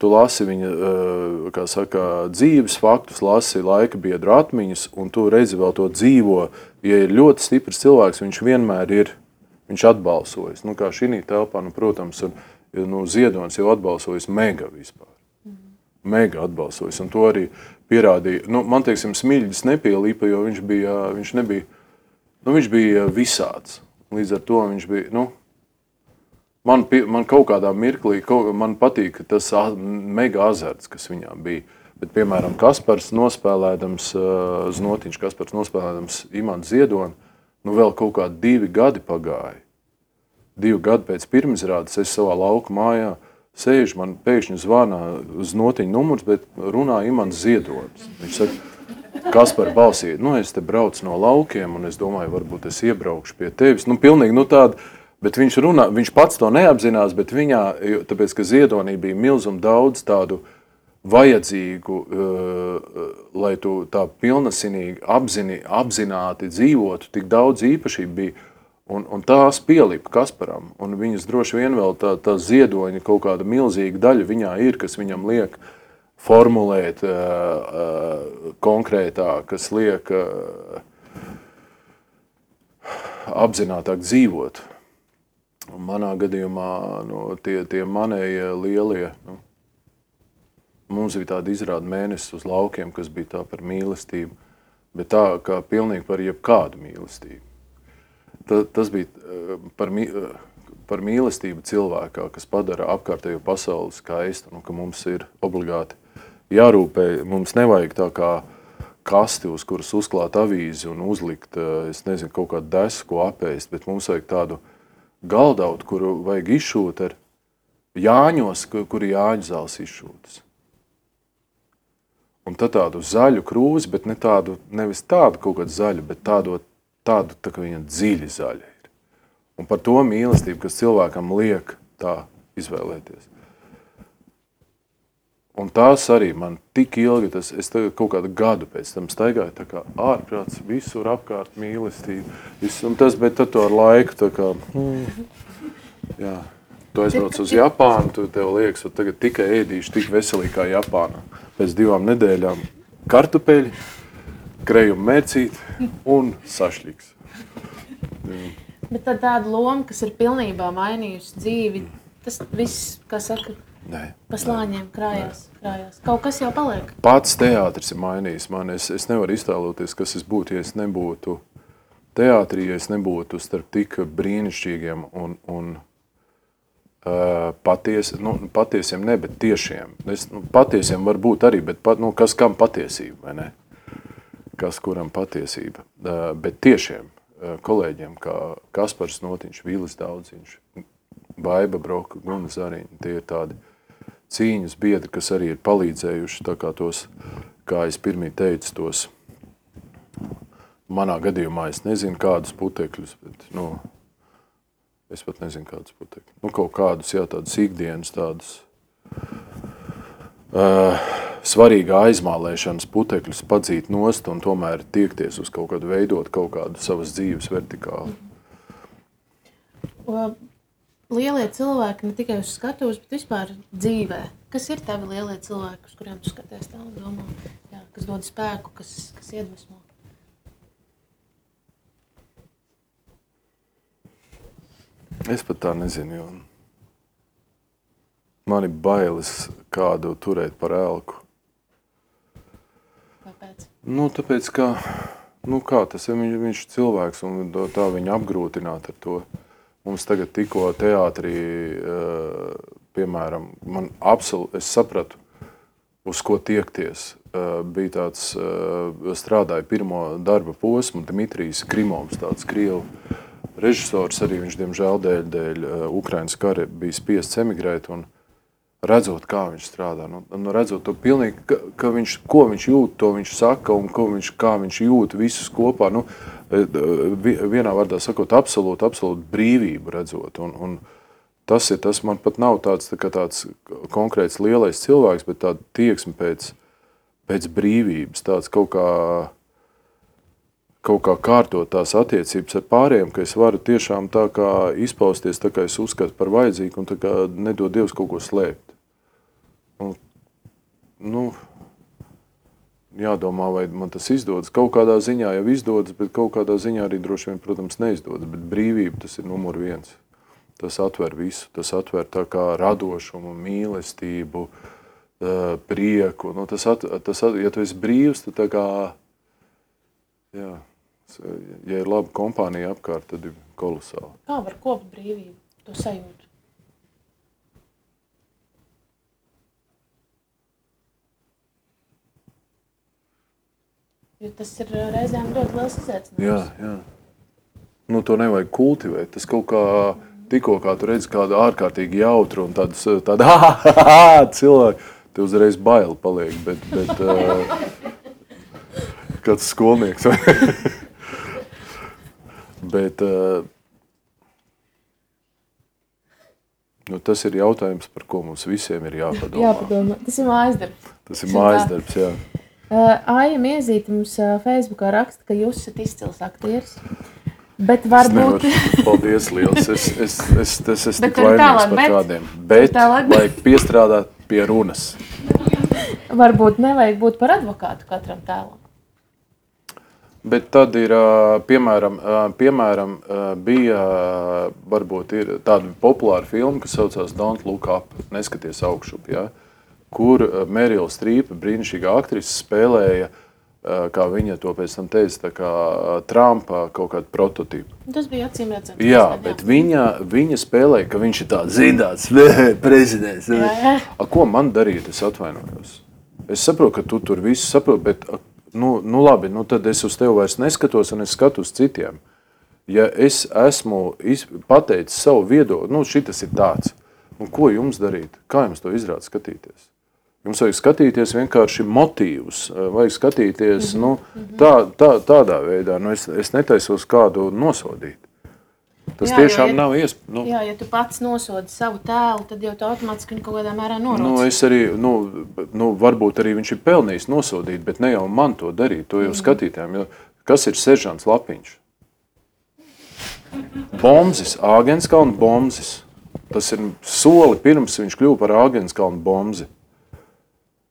lasi viņa, kā saka, dzīves faktus, lasi laika biedru atmiņas, un tu redzi vēl to dzīvo. Ja ir ļoti stiprs cilvēks, viņš vienmēr ir, viņš atbalsojas. Kā šī telpā, protams, Ziedonis jau atbalsojas mega vispār. Mega atbalsojas, un to arī pierādīja. Man, teiksim, Smiļģis nepielīpa, jo viņš bija visāds. Līdz ar to viņš bija, man kaut kādā mirklī, man patīk tas mega azarts, kas viņām bija. Bet, piemēram, Kaspars nospēlēdams, Znotiņš Kaspars nospēlēdams Imantu Ziedoni, vēl kaut kādi 2 gadi pagāja. 2 gadi pēc pirmizrādes es savā lauku mājā sēžu, man pēkšņi zvana Znotiņa numurs, bet runā Imants Ziedonis. Viņš saka, Kaspar balsī, es te braucu no laukiem, un es domāju, varbūt es iebraukšu pie tevis. Pilnīgi, tāda, bet viņš runā, viņš pats to neapzinās, bet viņā, tāpēc, ka Ziedonī bija milzum daudz tādu vajadzīgu, lai tu tā pilnasinīgi apzināti dzīvotu, tik daudz īpašību bija, Un tās pielipa Kasparam, un viņas droši vien vēl tā ziedoņa kaut kāda milzīga daļa viņā ir, kas viņam liek formulēt konkrētāk, kas liek apzinātāk dzīvot. Un manā gadījumā tie manējie lielie, mums bija tāda izrāda mēnesis uz laukiem, kas bija tā par mīlestību, bet tā kā pilnīgi par jebkādu mīlestību. Tas bija par mīlestību cilvēkā, kas padara apkārtējo pasauli skaistu, ka mums ir obligāti jārūpē. Mums nevajag tā kā kasti, uz kuras uzklāt avīzi un uzlikt, es nezinu, kaut kādu desu, ko apēst, bet mums vajag tādu galdautu, kuru vajag izšūt ar jāņos, kuri jāņu zāles izšūtas. Un tad tādu zaļu krūzi, bet nevis tādu kaut kādu zaļu, bet tādu tā kā viņa dziļi zaļa ir. Un par to mīlestību, kas cilvēkam liek tā izvēlēties. Un tās arī man tik ilgi, es tagad kaut kādu gadu pēc tam staigāju, tā kā ārprāts, visur apkārt mīlestību. Un tas, bet tad to ar laiku, tā kā, jā, tu aizbrauc uz Japānu, tu tev liekas, ka tagad tikai ēdīšu tik veselīgi kā Japānā. Pēc 2 nedēļām kartupeļi, krējuma mērcīti un sašļiks. Bet tad tāda loma, kas ir pilnībā mainījusi dzīvi, tas viss, kā saka, pa slāņiem krājās. Kaut kas jau paliek. Pats teātris ir mainījis mani. Es nevaru iztēloties, kas es būtu, ja es nebūtu teātrī, ja es nebūtu starp tik brīnišķīgiem un patiesiem ne, bet tiešiem. Patiesiem var būt arī, bet kas kam patiesība, vai ne? Kas kuram patiesība, bet tiešiem kolēģiem, kā Kaspars Notiņš, Vīlis Daudziņš, Baiba Broka, Guna Zariņa, tie ir tādi cīņas biedri, kas arī ir palīdzējuši, tā kā tos, kā es pirmī teicu, tos, manā gadījumā es nezinu kādus putekļus, bet, es pat nezinu kādus putekļus, kaut kādus, jā, tādus ikdienas, tādus, svarīgā aizmālēšanas putekļus padzīt nost un tomēr tiekties uz kaut kādu veidot kaut kādu savas dzīves vertikāli. Lielie cilvēki ne tikai uz skatuves, bet vispār dzīvē. Kas ir tavi lielie cilvēki, uz kuriem tu skaties tā un domā, kas dod spēku, kas iedvesmo? Es pat tā nezinu, jo man ir bailes kādu turēt par elku. Kāpēc? Tāpēc, kā tas ir, viņš cilvēks un tā viņa apgrūtināt ar to. Mums tagad tikko teātrī, piemēram, es sapratu, uz ko tiekties. Bija tāds, strādāja pirmo darba posmu, Dmitrijs Grimovs, tāds krievu režisors, arī viņš, diemžēl, dēļ Ukrainas kara bija spiests emigrēt, un redzot, kā viņš strādā, redzot to pilnīgi, ko viņš jūt, to viņš saka, un kā viņš jūt visus kopā, vienā vārdā sakot, absolūti brīvību redzot, un tas man pat nav tāds konkrēts lielais cilvēks, bet tāda tieksme pēc brīvības, tāds kaut kā kārtot tās attiecības ar pārējiem, ka es varu tiešām tā kā izpausties, tā kā es uzskatu par vajadzīgu un tā kā nedod Dievs kaut ko slēpt. Jādomā, vai man tas izdodas. Kaut kādā ziņā jau izdodas, bet kaut kādā ziņā arī droši vien, protams, neizdodas. Bet brīvība tas ir numur 1. Tas atver visu. Tas atver tā kā radošumu, mīlestību, prieku. Ja tu esi brīvs, tad tā kā, ja ir laba kompānija apkārt, tad ir kolosāli. Kā var kopt brīvību, to sajūtu? Jo tas ir reizēm ļoti liels izaicinājums. Jā. To nevajag kultivēt. Tas kaut kā, tikko kā tu redzi kādu ārkārtīgi jautru un tādu cilvēku, te uzreiz baili paliek, bet kāds skolnieks. Bet tas ir jautājums, par ko mums visiem ir jāpadomā. Tas ir mājasdarbs. Tas ir mājasdarbs, jā. Aija Miezīte mums Facebookā raksta, ka jūs esat izcils aktieris, Bet varbūt... Paldies liels, es tik vainīgs par kādiem. Bet vajag piestrādāt pie runas. Varbūt nevajag būt par advokātu katram tēlam. Bet tad ir, piemēram, bija, varbūt ir tāda populāra filma, kas saucās Don't Look Up, neskaties augšup, ja? Kur Meryl Streep, brīnišķīgā aktrise, spēlēja, kā viņa to pēc tam teica, tā kā Trumpa kaut kādu prototipu. Tas bija acīm redzams. Jā, bet viņa spēlēja, ka viņš ir tāds zindāts prezidents. Ko man darīt, es atvainojos? Es saprotu, ka tu tur visu saproti, bet nu labi, tad es uz tevi vairs neskatos un es skatos citiem. Ja es esmu pateicis savu viedokli, šitas ir tāds, un ko jums darīt? Kā jums to izrāda skatīties? Jums vajag skatīties vienkārši motīvus, vajag skatīties tādā veidā. Es netaisos kādu nosodīt. Tas tiešām nav iespējams. Jā, ja tu pats nosodi savu tēlu, tad jau tu automātiski kaut kādā mērā noroc. Es arī, varbūt arī viņš ir pelnījis nosodīt, bet ne jau man to darīt, to jau skatītājiem. Jo kas ir seržants Lapiņš? Bomzis, Āgenskalna Bomzis. Tas ir soli pirms viņš kļuva par Āgenskalna Bomzi.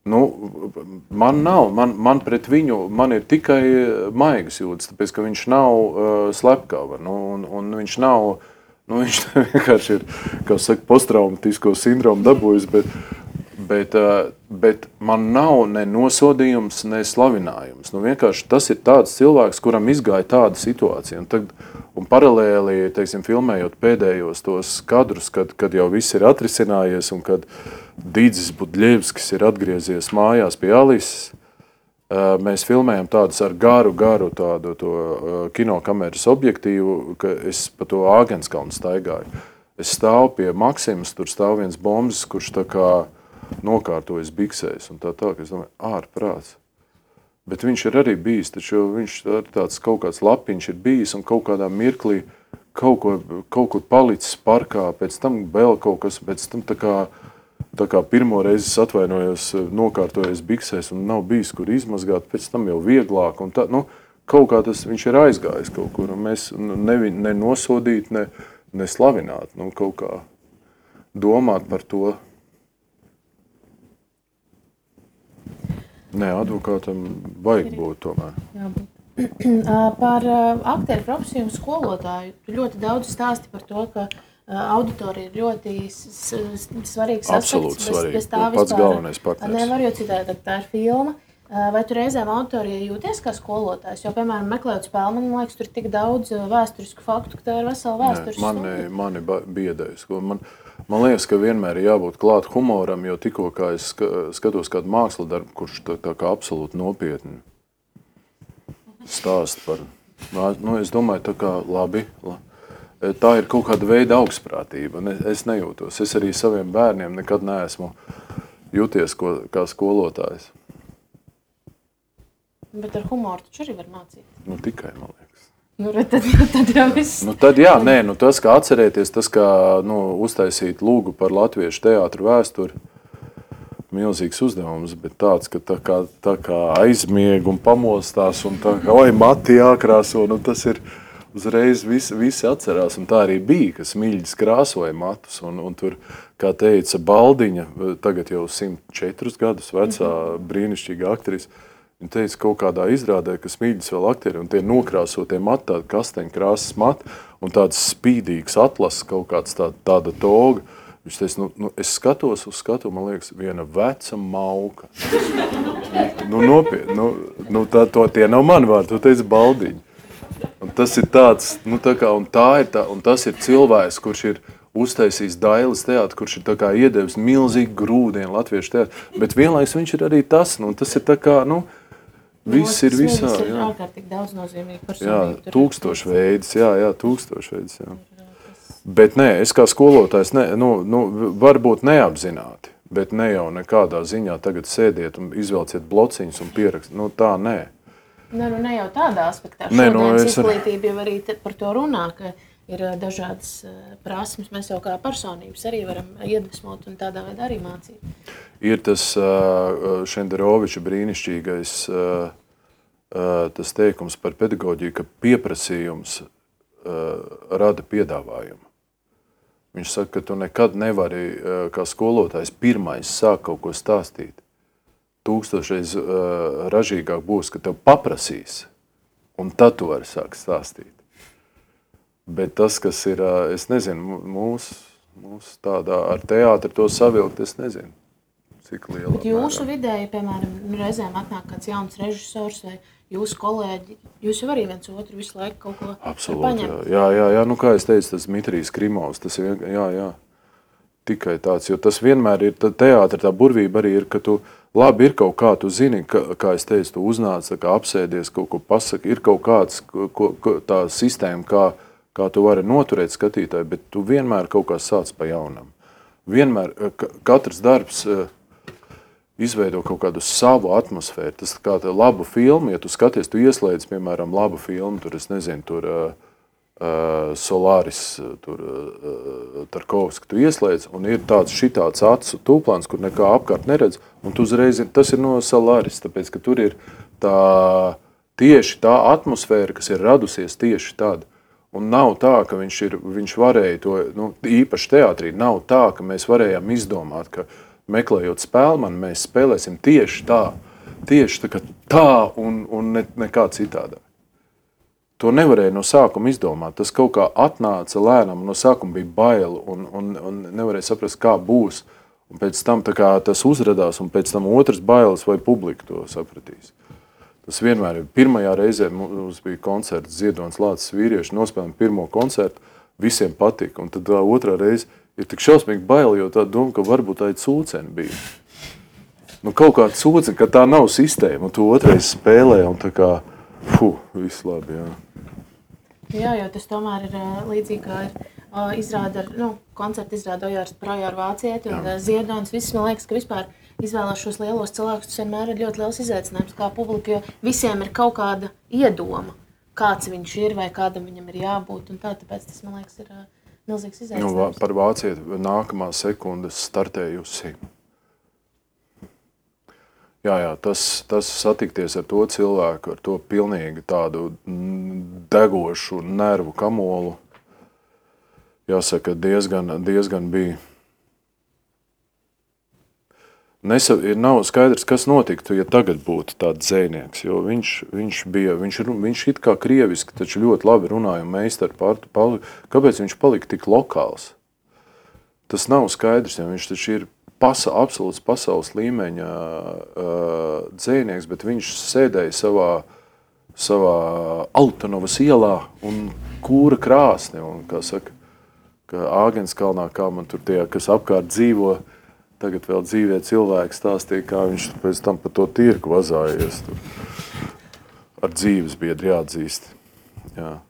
Man pret viņu, man ir tikai maigas jūtas, tāpēc, ka viņš nav slepkava, un viņš nav, viņš vienkārši ir, kā saka, posttraumatisko sindromu dabūjis, bet man nav ne nosodījums, ne slavinājums. Vienkārši tas ir tāds cilvēks, kuram izgāja tāda situācija, un paralēli, teiksim, filmējot pēdējos tos kadrus, kad jau viss ir atrisinājies, un kad Dīdzis Budļevskis ir atgriezies mājās pie Alises. Mēs filmējam tādus ar garu tādu kinokameras objektīvu, ka es pa to Āgenskalnu staigāju. Es stāvu pie Maksimas, tur stāv viens Bomzis, kurš tā kā nokārtojas biksēs un tā, ka es domāju, ārprāts. Bet viņš ir arī bijis, taču viņš tāds kaut kāds Lapiņš ir bijis un kaut kādā mirklī kaut kur palicis parkā, pēc tam vēl kaut kas, pēc tam tā kā pirmo reizi es atvainojos, nokārtojies biksēs un nav bijis, kur izmazgāt, pēc tam jau vieglāk. Un tā, kaut kā tas viņš ir aizgājis kaut kur, un mēs ne nosodīt, ne slavināt, kaut kā domāt par to. Nē, advokātam vajag būt tomēr. Par aktieru profesiju un skolotāju. Tu ļoti daudz stāsti par to, ka auditorija ir ļoti svarīgs aspekts. Bez tā pats galvenais partners. Nevar, jo citādi tā ir filma. Vai tu reizēm auditorijai jūties kā skolotājs? Jo, piemēram, meklējot spēli, man liekas, tur ir tik daudz vēsturisku faktu, ka tā ir vesela vēstures stunda. Mani biedējas. Man liekas, ka vienmēr ir jābūt klāt humoram, jo tikko kā es skatos kādu mākslu darbu, kurš tā kā absolūti nopietni stāst par... es domāju, tā kā labi. Tā ir kaut kāda veida augstprātība. Es nejūtos. Es arī saviem bērniem nekad neesmu jūties kā skolotājs. Bet ar humoru taču arī var mācīt. Tikai, man liekas. Tad jau viss. Tad jā, tas, kā atcerēties, tas, kā uztaisīt lūgu par latviešu teātru vēsturi, milzīgs uzdevums, bet tāds, ka tā kā aizmieg un pamostās un tā kā, mati jākrāso, tas ir... Uzreiz visi atcerās, un tā arī bija, ka Smiļģis krāsoja matus, un tur, kā teica Baldiņa, tagad jau 104 gadus vecā brīnišķīga aktrise, viņa teica kaut kādā izrādē, ka Smiļģis vēl aktieri, un tie nokrāsotie mati, tādi kasteņkrāsas mati, un tāds spīdīgs atlases, kaut kāds tāda toga. Viņš teica, es skatos uz skatu, man liekas, viena veca mauka. Nopietni, tie nav mani vārdi, to teica Baldiņa. Un tas ir tāds, un tas ir cilvēks, kurš ir uztaisījis Dailes teātru, kurš ir tā kā iedevis milzīgi grūdienu latviešu teātru, bet vienlaiks viņš ir arī tas, tas ir tā kā, viss ir visā. Tas ir ārkārtīgi daudz nozīmīgi personīgi. Jā, tūkstošveidis, tūkstošveidis, jā. Bet nē, es kā skolotājs, varbūt neapzināti, bet ne jau nekādā ziņā tagad sēdiet un izvelciet blociņus un pierakst, tā nē. Ne jau tādā aspektā. Šodienas izglītība jau arī par to runā, ka ir dažādas prasmes. Mēs jau kā personības arī varam iedvesmot un tādā veidā arī mācīt. Ir tas Šenderoviča brīnišķīgais tas teikums par pedagoģiju, ka pieprasījums rada piedāvājumu. Viņš saka, ka tu nekad nevari, kā skolotājs, pirmais sāk kaut ko stāstīt. 1000 ražīgāk būs, ka tev paprasīs, un tad tu vari sākt stāstīt. Bet tas, kas ir, es nezinu, mūsu tādā ar teātri to savilkt, es nezinu, cik liela. Bet jūsu vidēji, piemēram, reizēm atnāk kāds jauns režisors vai jūsu kolēģi, jūs jau arī viens otru visu laiku kaut ko paņemt. Jā, nu kā es teicu, tas Dmitrijs Krimovs, tas ir, jā, tikai tāds, jo tas vienmēr ir, teātra tā burvība arī ir, ka tu, labi ir kaut kā, tu zini, kā es teicu, tu uznāc, kā apsēdies, kaut ko pasaki, ir kaut kāds tā sistēma, kā tu vari noturēt skatītāju, bet tu vienmēr kaut kā sāc pa jaunam. Vienmēr, katrs darbs izveido kaut kādu savu atmosfēru. Tas kā labu filmu, ja tu skaties, tu ieslēdz, piemēram, labu filmu, tur, es nezinu, tur Solaris, tur Tarkovski, tu ieslēdz, un ir tāds šitāds acu tūplāns, kur nekā apkārt neredz, un tu uzreiz, tas ir no Solaris, tāpēc, ka tur ir tieši tā atmosfēra, kas ir radusies tieši tad. Un nav tā, ka viņš varēja to, īpaši teātrī, nav tā, ka mēs varējām izdomāt, ka meklējot spēlmani, mēs spēlēsim tieši tā un nekā citādā. To nevarēja no sākuma izdomāt. Tas kaut kā atnāca lēnām, no sākuma bija bail un nevarēja saprast, kā būs. Un pēc tam tā kā tas uzradās, un pēc tam otrs bailes, vai publika to sapratīs. Tas vienmēr ir. Pirmajā reizē mums bija koncerts Ziedonis Lācis vīrieši, nospēlējām pirmo koncertu, visiem patika. Un tad tā otrā reize ir tik šausmīgi bail, jo tā doma, ka varbūt tā ir cūceni bija. Kaut kāda cūceni, ka tā nav sistēma, un tu otrais spēlē, un tā kā, viss labi, jā. Jā, jo tas tomēr ir līdzīgi, kā ir izrāda, koncerta izrāda Ojārs Projāra Vācieti un Ziedonis. Viss, man liekas, ka vispār izvēlās šos lielos cilvēkus, tas vienmēr ir ļoti liels izaicinājums kā publika, jo visiem ir kaut kāda iedoma, kāds viņš ir vai kādam viņam ir jābūt, un tāpēc tas, man liekas, ir milzīgs izaicinājums. Par Vācieti nākamā sekundes startējusi. Jā, tas satikties ar to cilvēku, ar to pilnīgi tādu degošu nervu kamolu, jāsaka, diezgan bija. Nav skaidrs, kas notiktu, ja tagad būtu tāds dzejnieks, jo viņš it kā krieviski, taču ļoti labi runāja un meistari kāpēc viņš palika tik lokāls? Tas nav skaidrs, jo viņš taču ir absolūts pasaules līmeņa dzejnieks, bet viņš sēdēja savā Altanovas ielā un kūra krāsni, un, kā saka, ka Āgenskalnā, kā man tur tie, kas apkārt dzīvo, tagad vēl dzīvē cilvēki stāstīja, kā viņš pēc tam pa to tirku vazājies. Ar dzīves biedri jāatzīst. Jā.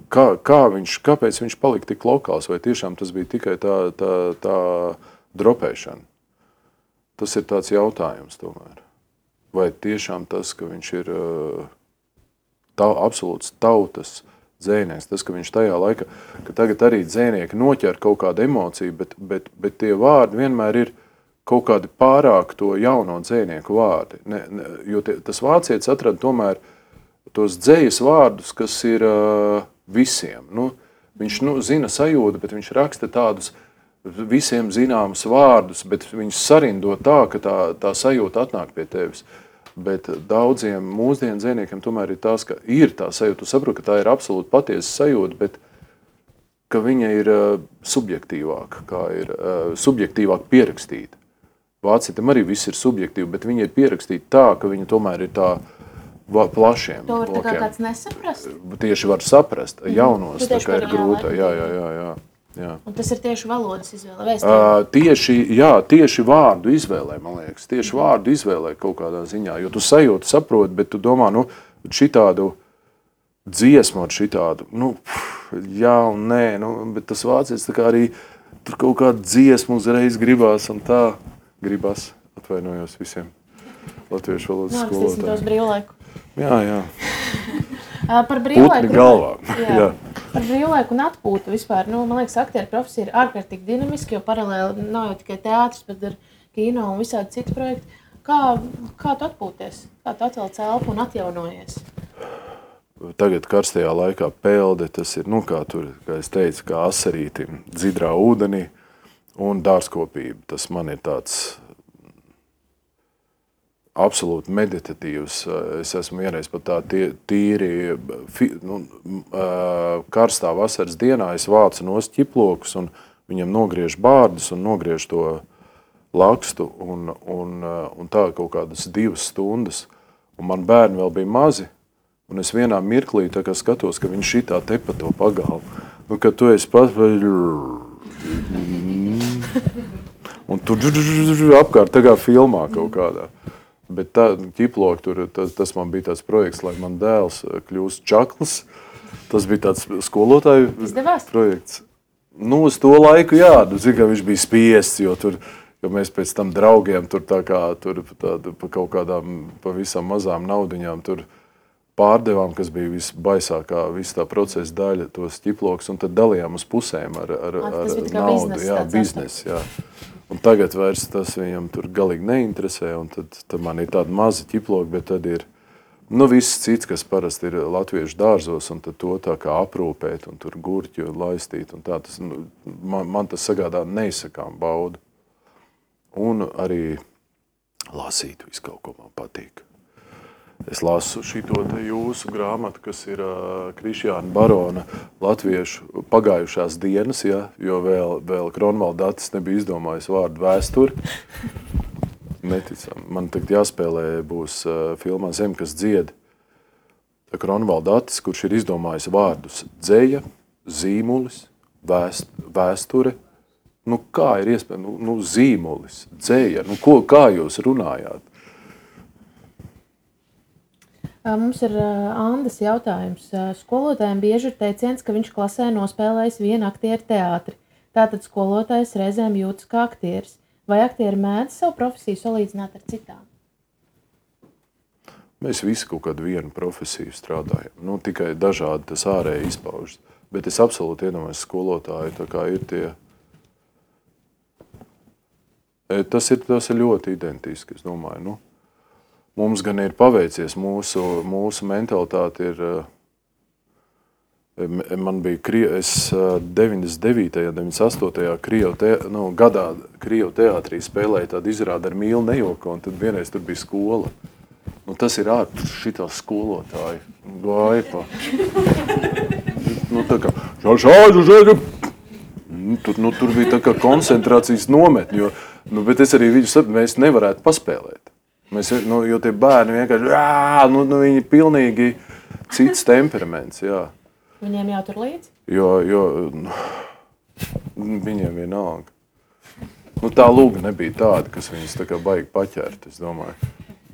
Kāpēc viņš palika tik lokāls, vai tiešām tas bija tikai tā dropēšana? Tas ir tāds jautājums tomēr. Vai tiešām tas, ka viņš ir absolūts tautas dzejnieks, tas, ka viņš tajā laikā, ka tagad arī dzejnieki noķer kaut kādu emociju, bet tie vārdi vienmēr ir kaut kādi pārāk to jauno dzejnieku vārdi. Jo tas vācietis atrada tomēr tos dzejas vārdus, kas ir visiem. Viņš zina sajūtu, bet viņš raksta tādus visiem zināmus vārdus, bet viņš sarindo tā, ka tā sajūta atnāk pie tevis. Bet daudziem mūsdienu dzejniekiem tomēr ir tās, ka ir tā sajūta. Tu saproti, ka tā ir absolūti patiesa sajūta, bet ka viņa ir subjektīvāk pierakstīta. Vācietim arī viss ir subjektīvi, bet viņa ir pierakstīta tā, ka viņa tomēr ir tā plašiem. To var tā kā kāds nesaprast? Tieši var saprast. Jaunos tā kā ir grūta. Jā. Un tas ir tieši valodas izvēle? Tieši vārdu izvēlē, man liekas. Tieši vārdu izvēlē kaut kādā ziņā. Jo tu sajūti, saproti, bet tu domā, šitādu dziesmu ar šitādu, jā un nē, bet tas vācietis tā kā arī tur kaut kādu dziesmu uzreiz gribās un tā gribās. Atvainojos visiem latviešu valodas skolotājiem. Nākstīsim tos brīvlaiku. Jā. Par brīvlaiku. Putni galvā. Jā. Par brīvlaiku un atpūtu vispār. Man liekas, aktieru profesija ir ārkārtīgi dinamiski, jo paralēli nav jau tikai teātris, bet ir kino un visādi citi projekti. Kā tu atpūties? Kā tu atvelc elpu un atjaunojies? tagad karstajā laikā pelde, tas ir, kā es teicu, kā asarītim dzidrā ūdenī un dārzkopība. Tas man ir tāds absolūti meditatīvs. Es esmu vienreiz pat tā tīri karstā vasaras dienā, es vācu nost ķiplokus un viņam nogriež bārdus un nogriež to lakstu un tā kaut kādas 2 stundas. Un man bērni vēl bija mazi, un es vienā mirklī tā kā skatos, ka viņš šitā tepa to pagalvu. Un kad tu esi pats, un tu apkārt tā kā filmā kaut kādā. Bet tā ķiploki tur, tas man bija tāds projekts, lai man dēls kļūst čaklis. Tas bija tāds skolotāju projekts. Uz to laiku, jā, ka viņš bija spiests, jo tur, jo mēs pēc tam draugiem tur tā kā, tur pa kaut kādām pavisam mazām naudiņām tur pārdevām, kas bija visbaisākā, visa tā procesa daļa, tos ķiplokus, un tad dalījām uz pusēm ar naudu. Jā, biznes, jā. Un tagad vairs tas viņam tur galīgi neinteresē, un tad man ir tāda maza ķiploka, bet tad ir viss cits, kas parasti ir latviešu dārzos, un tad to tā kā aprūpēt, un tur gurķi laistīt, un tā. Tas, man tas sagādā neizsakām baudu. Un arī lasīt visu kaut ko man patīk. Es lasu šito te jūsu grāmatu, kas ir Krišjāna Barona latviešu pagājušās dienas, ja, jo vēl Kronvaldatis nebija izdomājis vārdu vēsturi. Neticam. Man tagad jāspēlē būs filmā Zem, kas dzied. Kronvaldatis, kurš ir izdomājis vārdus dzeja, zīmulis, vēsture. Kā ir iespējams? Zīmulis, dzeja. Kā jūs runājāt? Mums ir Andas jautājums. Skolotājiem bieži ir teiciens, ka viņš klasē nospēlējis vienu aktieru teātri. Tātad skolotājs reizēm jūtas kā aktieris. Vai aktieri mēdz savu profesiju salīdzināt ar citām? Mēs visi kaut kādu vienu profesiju strādājam. Tikai dažādi tas ārēji izpaužas. Bet es absolūti iedomājos skolotāju, tā kā ir tie. Tas ir ļoti identiski, es domāju. Mums gan ir paveicies, mūsu mentalitāte ir, man bija, es 99. un 98. Gadā Krievu teātrī spēlēju tādu izrādi ar Mīlu Nejoko, un tad vienreiz tur bija skola. Tas ir šitā skolotāji, gāja pa. Tā kā, tur bija tā kā koncentrācijas nometni, bet es arī viņu saprotu, mēs nevarētu paspēlēt. Jo tie bērni vienkārši, viņi pilnīgi cits temperaments, jā. Viņiem jātur līdzi? Jo viņiem vienalga. Tā lūga nebija tāda, kas viņas tā kā baigi paķert, es domāju.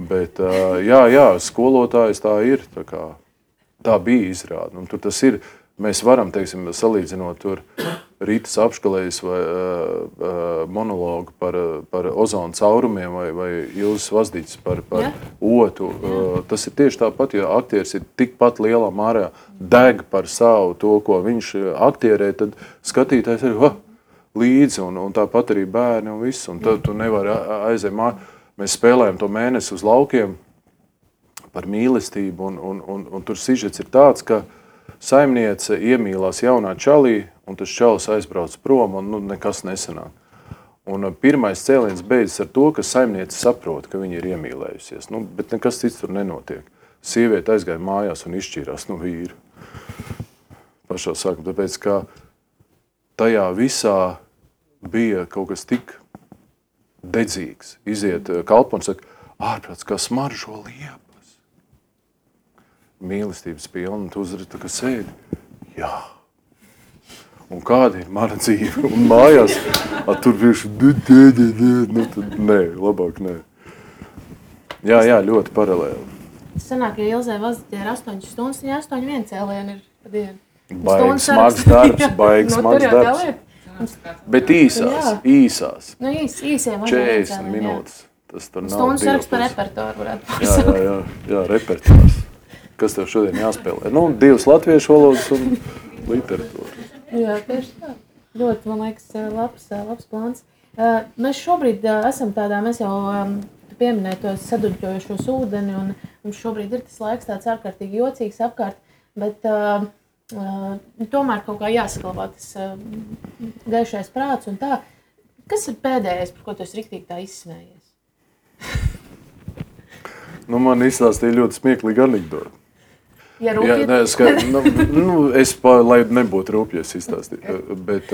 Bet, jā, skolotājs tā ir, tā bija izrāda. Tur tas ir, mēs varam, teiksim, salīdzinot tur Rītas apškalējas vai monologu par ozonu caurumiem vai Ilzas Vazdiķis par otu. Tas ir tieši tāpat, ja aktieris ir tikpat lielā mērā deg par savu to, ko viņš aktierē, tad skatītājs ir līdzi un tāpat arī bērni un viss. Un tad tu nevari aiziet Mēs spēlējam to mēnesi uz laukiem par mīlestību un tur sižets ir tāds, ka saimniece iemīlās jaunā čalī, un tas čalis aizbrauc prom, un nekas nesanāk. Un pirmais cēliens beidzas ar to, ka saimniece saprot, ka viņa ir iemīlējusies. Bet nekas cits tur nenotiek. Sieviete aizgāja mājās un izšķīrās no vīru. Pašā sākumā, tāpēc, ka tajā visā bija kaut kas tik dedzīgs. Iziet kalpons, saka, ārprāts, kā smaržo liepas. Mīlestības pilna, tu uzredz, tā kā sēdi. Jā. Un kāda ir mana dzīve? Un mājās, tur vienkārši, nē, labāk nē. Jā, ļoti paralēli. Sanāk, ja Ilzē Vazdiķē ir 8 stundas, ja 8 cēlieni ir pa dienu. Baigi smags darbs, Bet īsās. Īsiem 40 minūtes. Tas tur nav stundas saraksts par repertuāru varētu pasaukt. Jā, repertuārs. Kas tev šodien jāspēlē? 2 latviešu valodas un literatūra. Jā, tieši tā. Ļoti, man liekas, labs plāns. Mēs šobrīd esam tādā, mēs jau pieminēju tos saduļķojušos ūdeni, un mums šobrīd ir tas laiks tāds ārkārtīgi jocīgs apkārt. bet tomēr kaut kā jāsaglabā tas gaišais prāts un tā. Kas ir pēdējais, par ko tu esi riktīgi tā izsmējies? Man izstāstīja ļoti smieklīgi anekdoti. Ja rūpīgi? Es, lai nebūtu rūpjies izstāstīt, bet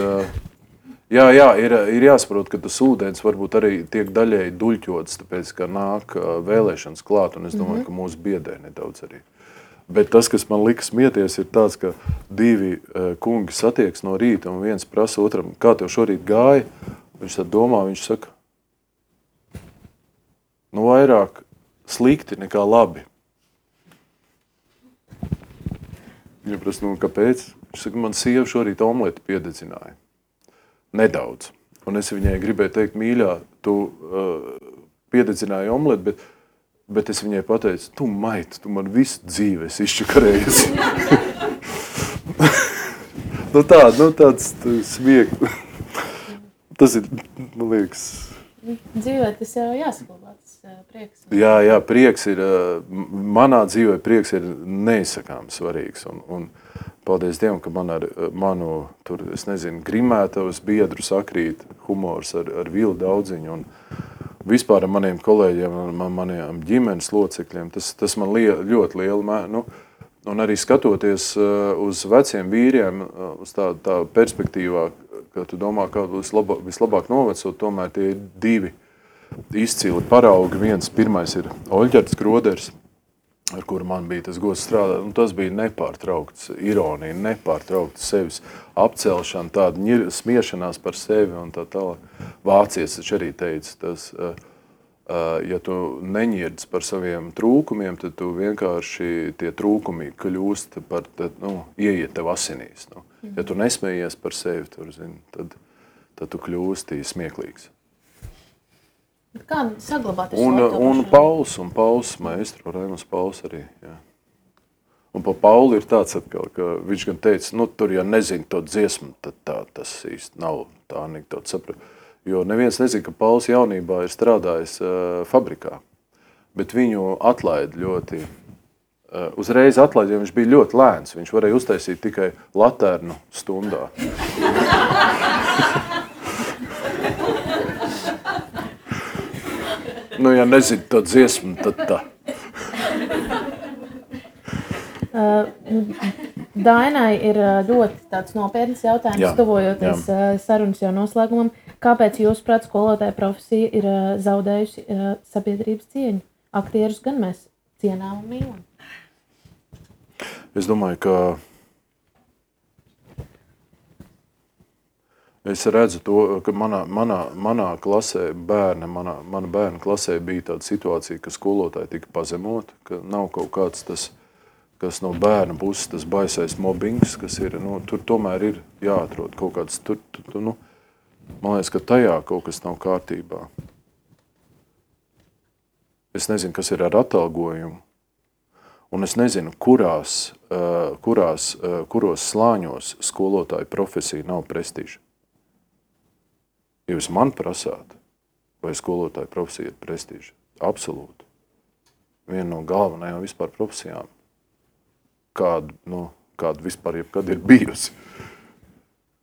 ir jāsaprot, ka tas ūdens varbūt arī tiek daļēji duļķots, tāpēc, ka nāk vēlēšanas klāt, un es domāju, ka mūsu biedē nedaudz arī. Bet tas, kas man lika smieties, ir tāds, ka divi kungi satieks no rīta, un viens prasa otram, kā tev šorīt gāja? Viņš tad domā, viņš saka, vairāk slikti nekā labi. Viņa prasa, kāpēc? Viņš saka, man sieva šorīt omleti piededzināja. Nedaudz. Un es viņai gribēju teikt, mīļā, tu piededzināji omleti, bet es viņai pateicu, tu maita, tu man visu dzīvi esi izčakarējies. Tāds smiekli. Tas ir, man liekas... Dzīvē tas jau jāsaglabā, tas prieks. Jā, prieks ir, manā dzīvē prieks ir neizsakāms svarīgs. Un paldies Dievam, ka man ar manu, grimētavas biedru sakrīt humors ar Vilu Daudziņu un vispār ar maniem kolēģiem, maniem ģimenes locekļiem. Tas man ļoti liela un arī skatoties uz veciem vīriem, uz tā perspektīvā, ka tu domā, kā vislabāk novecot, tomēr tie ir divi izcili paraugi. Pirmais ir Oļģerts Groders, ar kuru man bija tas gods strādāt, un tas bija nepārtraukts ironija, nepārtraukts sevis apcelšana, tāda smiešanās par sevi un tā tālāk. Vācietis taču arī teica, tas, ja tu neņirdz par saviem trūkumiem, tad tu vienkārši tie trūkumi kļūst par, ieiet tev asinīs. Ja tu nesmējies par sevi, tad tu kļūsti smieklīgs. Kā saglabāt un Pauls maestro, Raimunds Pauls arī. Jā. Un pa Paulu ir tāds atkal, ka viņš gan teica, tur, ja nezinu to dziesmu, tad tas īsti nav tā anekdota saprat. Jo neviens nezina, ka Pauls jaunībā ir strādājis fabrikā, bet viņu atlaid ļoti, uzreiz atlaid, jo viņš bija ļoti lēns. Viņš varēja uztaisīt tikai latērnu stundā. Ja nezinu to dziesmu, tad tā. Dainai ir ļoti tāds nopietns jautājums, tuvojoties sarunas jau noslēgumam. Kāpēc jūsuprāt skolotāja profesija ir zaudējusi sabiedrības cieņu? Aktierus gan mēs cienām un mīlam. Es domāju, ka es redzu to, ka manā klasē mana bērna klasē bija tāda situācija, ka skolotāji tika pazemot, ka nav kaut kāds tas, kas no bērna puses tas baisais mobbings, kas ir, tur tomēr ir jāatrod kaut kāds, man liekas, ka tajā kaut kas nav kārtībā. Es nezinu, kas ir ar atalgojumu, un es nezinu, kuros slāņos skolotāju profesija nav prestiža. Ja jūs man prasāt, vai skolotāju profesija ir prestiža? Absolūti. Viena no galvenajām vispār profesijām, kāda vispār jebkad ir bijusi.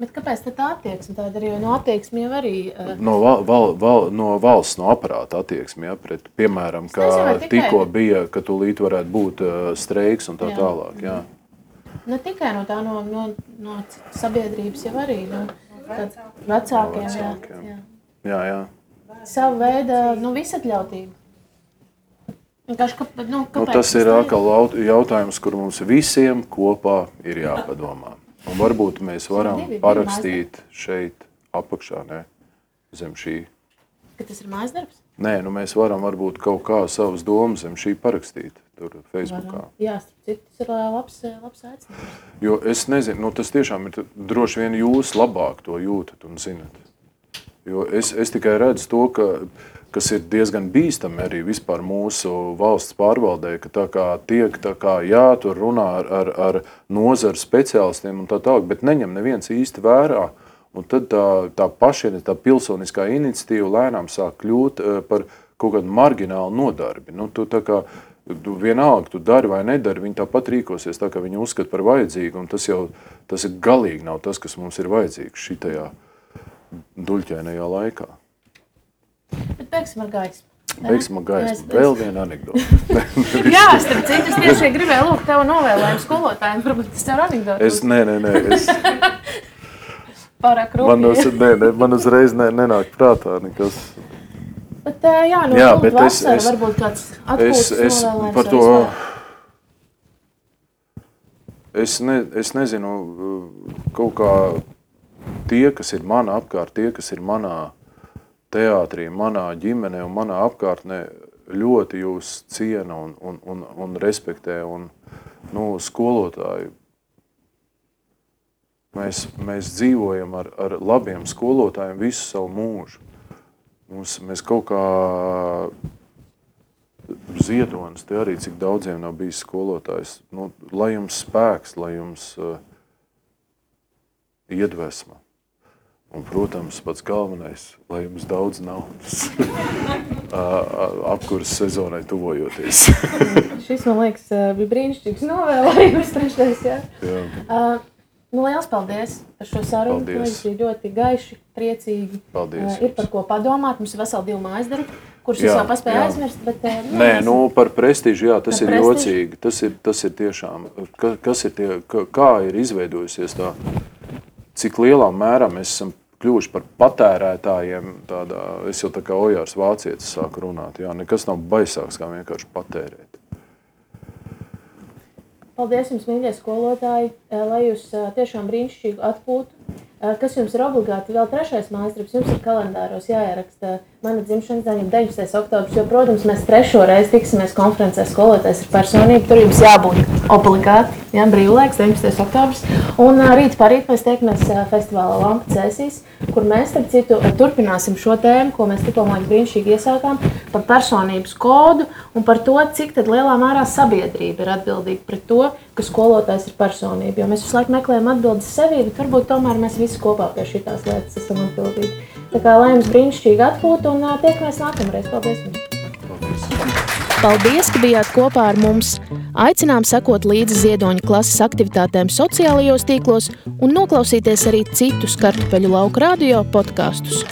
Bet kāpēc tā attieksme tāda ir? Jo no attieksmi jau arī... No valsts, no aparāta attieksmi, pret, piemēram, kā tikko bija, ka tūlīt varētu būt streiks un tā tālāk. Jā. Ne tikai no tā, no sabiedrības jau arī, vecākiem. Jā. Savu veidu, visatļautību. Kāpēc tas ir atkal jautājums, kur mums visiem kopā ir jāpadomā. Un varbūt mēs varam parakstīt šeit apakšā, zem šī. Ka tas ir mājas darbs? Nē, mēs varam varbūt kaut kā savas domas zem šī parakstīt tur Facebookā. Jā, tas ir labs aicinājums. Jo es nezinu, tas tiešām ir droši vien jūs labāk to jūtat un zinat. Jo es tikai redzu to, kas ir diezgan bīstami arī vispār mūsu valsts pārvaldē, ka tur runā ar nozaru speciālistiem un tā tālāk, bet neņem neviens īsti vērā. Un tad tā pašiena, tā pilsoniskā iniciatīva lēnām sāk kļūt par kaut kādu marginālu nodarbi. Tu vienalga, tu dari vai nedari, viņi tāpat rīkosies tā, kā viņi uzskata par vajadzīgu, un tas ir galīgi nav tas, kas mums ir vajadzīgs šitajā duļķainajā laikā. Bet beigsim ar gaismu. Beigsim ar gaismu. Vēl viena anekdota. Jā, starp citu, es tieši gribēju lūgt tev novēlējumu skolotājiem, varbūt tas tev anekdota. Nē. Pārāk rūpīgi. Man uzreiz nenāk prātā nekas. Bet lūgt vasara, varbūt kāds atpūtas novēlējums par to, es nezinu, kaut kā tie, kas ir mana apkārt, tie, kas ir manā teātrī, manā ģimenē un manā apkārtnē, ļoti jūs ciena un respektē. Un, skolotāji, mēs dzīvojam ar labiem skolotājiem visu savu mūžu. Mēs kaut kā Ziedonis, te arī cik daudziem nav bijis skolotājs. Lai jums spēks, lai jums iedvesma. Un, protams, pats galvenais, lai jums daudz naudas apkuras sezonai tuvojoties. Šis, man liekas, bija brīnišķīgs novēlējums trešais, jā? Jā. Liels paldies par šo sarunu. Paldies. Bija ļoti gaiši, priecīgi. Paldies. Ir par ko padomāt. Mums ir veseli 2 mājas darbi, kurus es vēl paspēju aizmirst. Bet, par prestīžu, jā, tas ir jocīgi. Tas ir tiešām, kā ir izveidojusies tā, cik lielā mērā mēs esam kļuvuši par patērētājiem. Es jau tā kā Ojārs Vācietis sāku runāt. Jā, nekas nav baisāks, kā vienkārši patērēt. Paldies jums, mīļie skolotāji, lai jūs tiešām brīnišķīgu atpūtu. Kas jums ir obligāti vēl 3. mājasdarbs, jums ir kalendāros jāieraksta mana dzimšanas diena, 19. oktobris, jo, protams, mēs 3. reizi tiksimies konferencē skolotājs ir personība, tur jums jābūt obligāti, jā, brīvlaiks, 19. oktobris. Un rīt parīt mēs tiekamies festivālā Lampa Cēsīs, kur mēs, starp citu, turpināsim šo tēmu, ko mēs tikko brīnišķīgi iesākām, par personības kodu un par to, cik tad lielā mērā sabiedrība ir atbildīga pret to, ka skolotājs ir personība. Jo mēs visu laiku meklējam atbildes sevī, bet varbūt tomēr mēs visi kopā pie šitās lietas esam atbildīgi. Tā kā lai jums brīnišķīgi atpūta un tiekamies nākamreiz. Paldies jums! Paldies, ka bijāt kopā ar mums! Aicinām sekot līdzi Ziedoņa klases aktivitātēm sociālajos tīklos un noklausīties arī citus Kartupeļu lauku radio podkastus.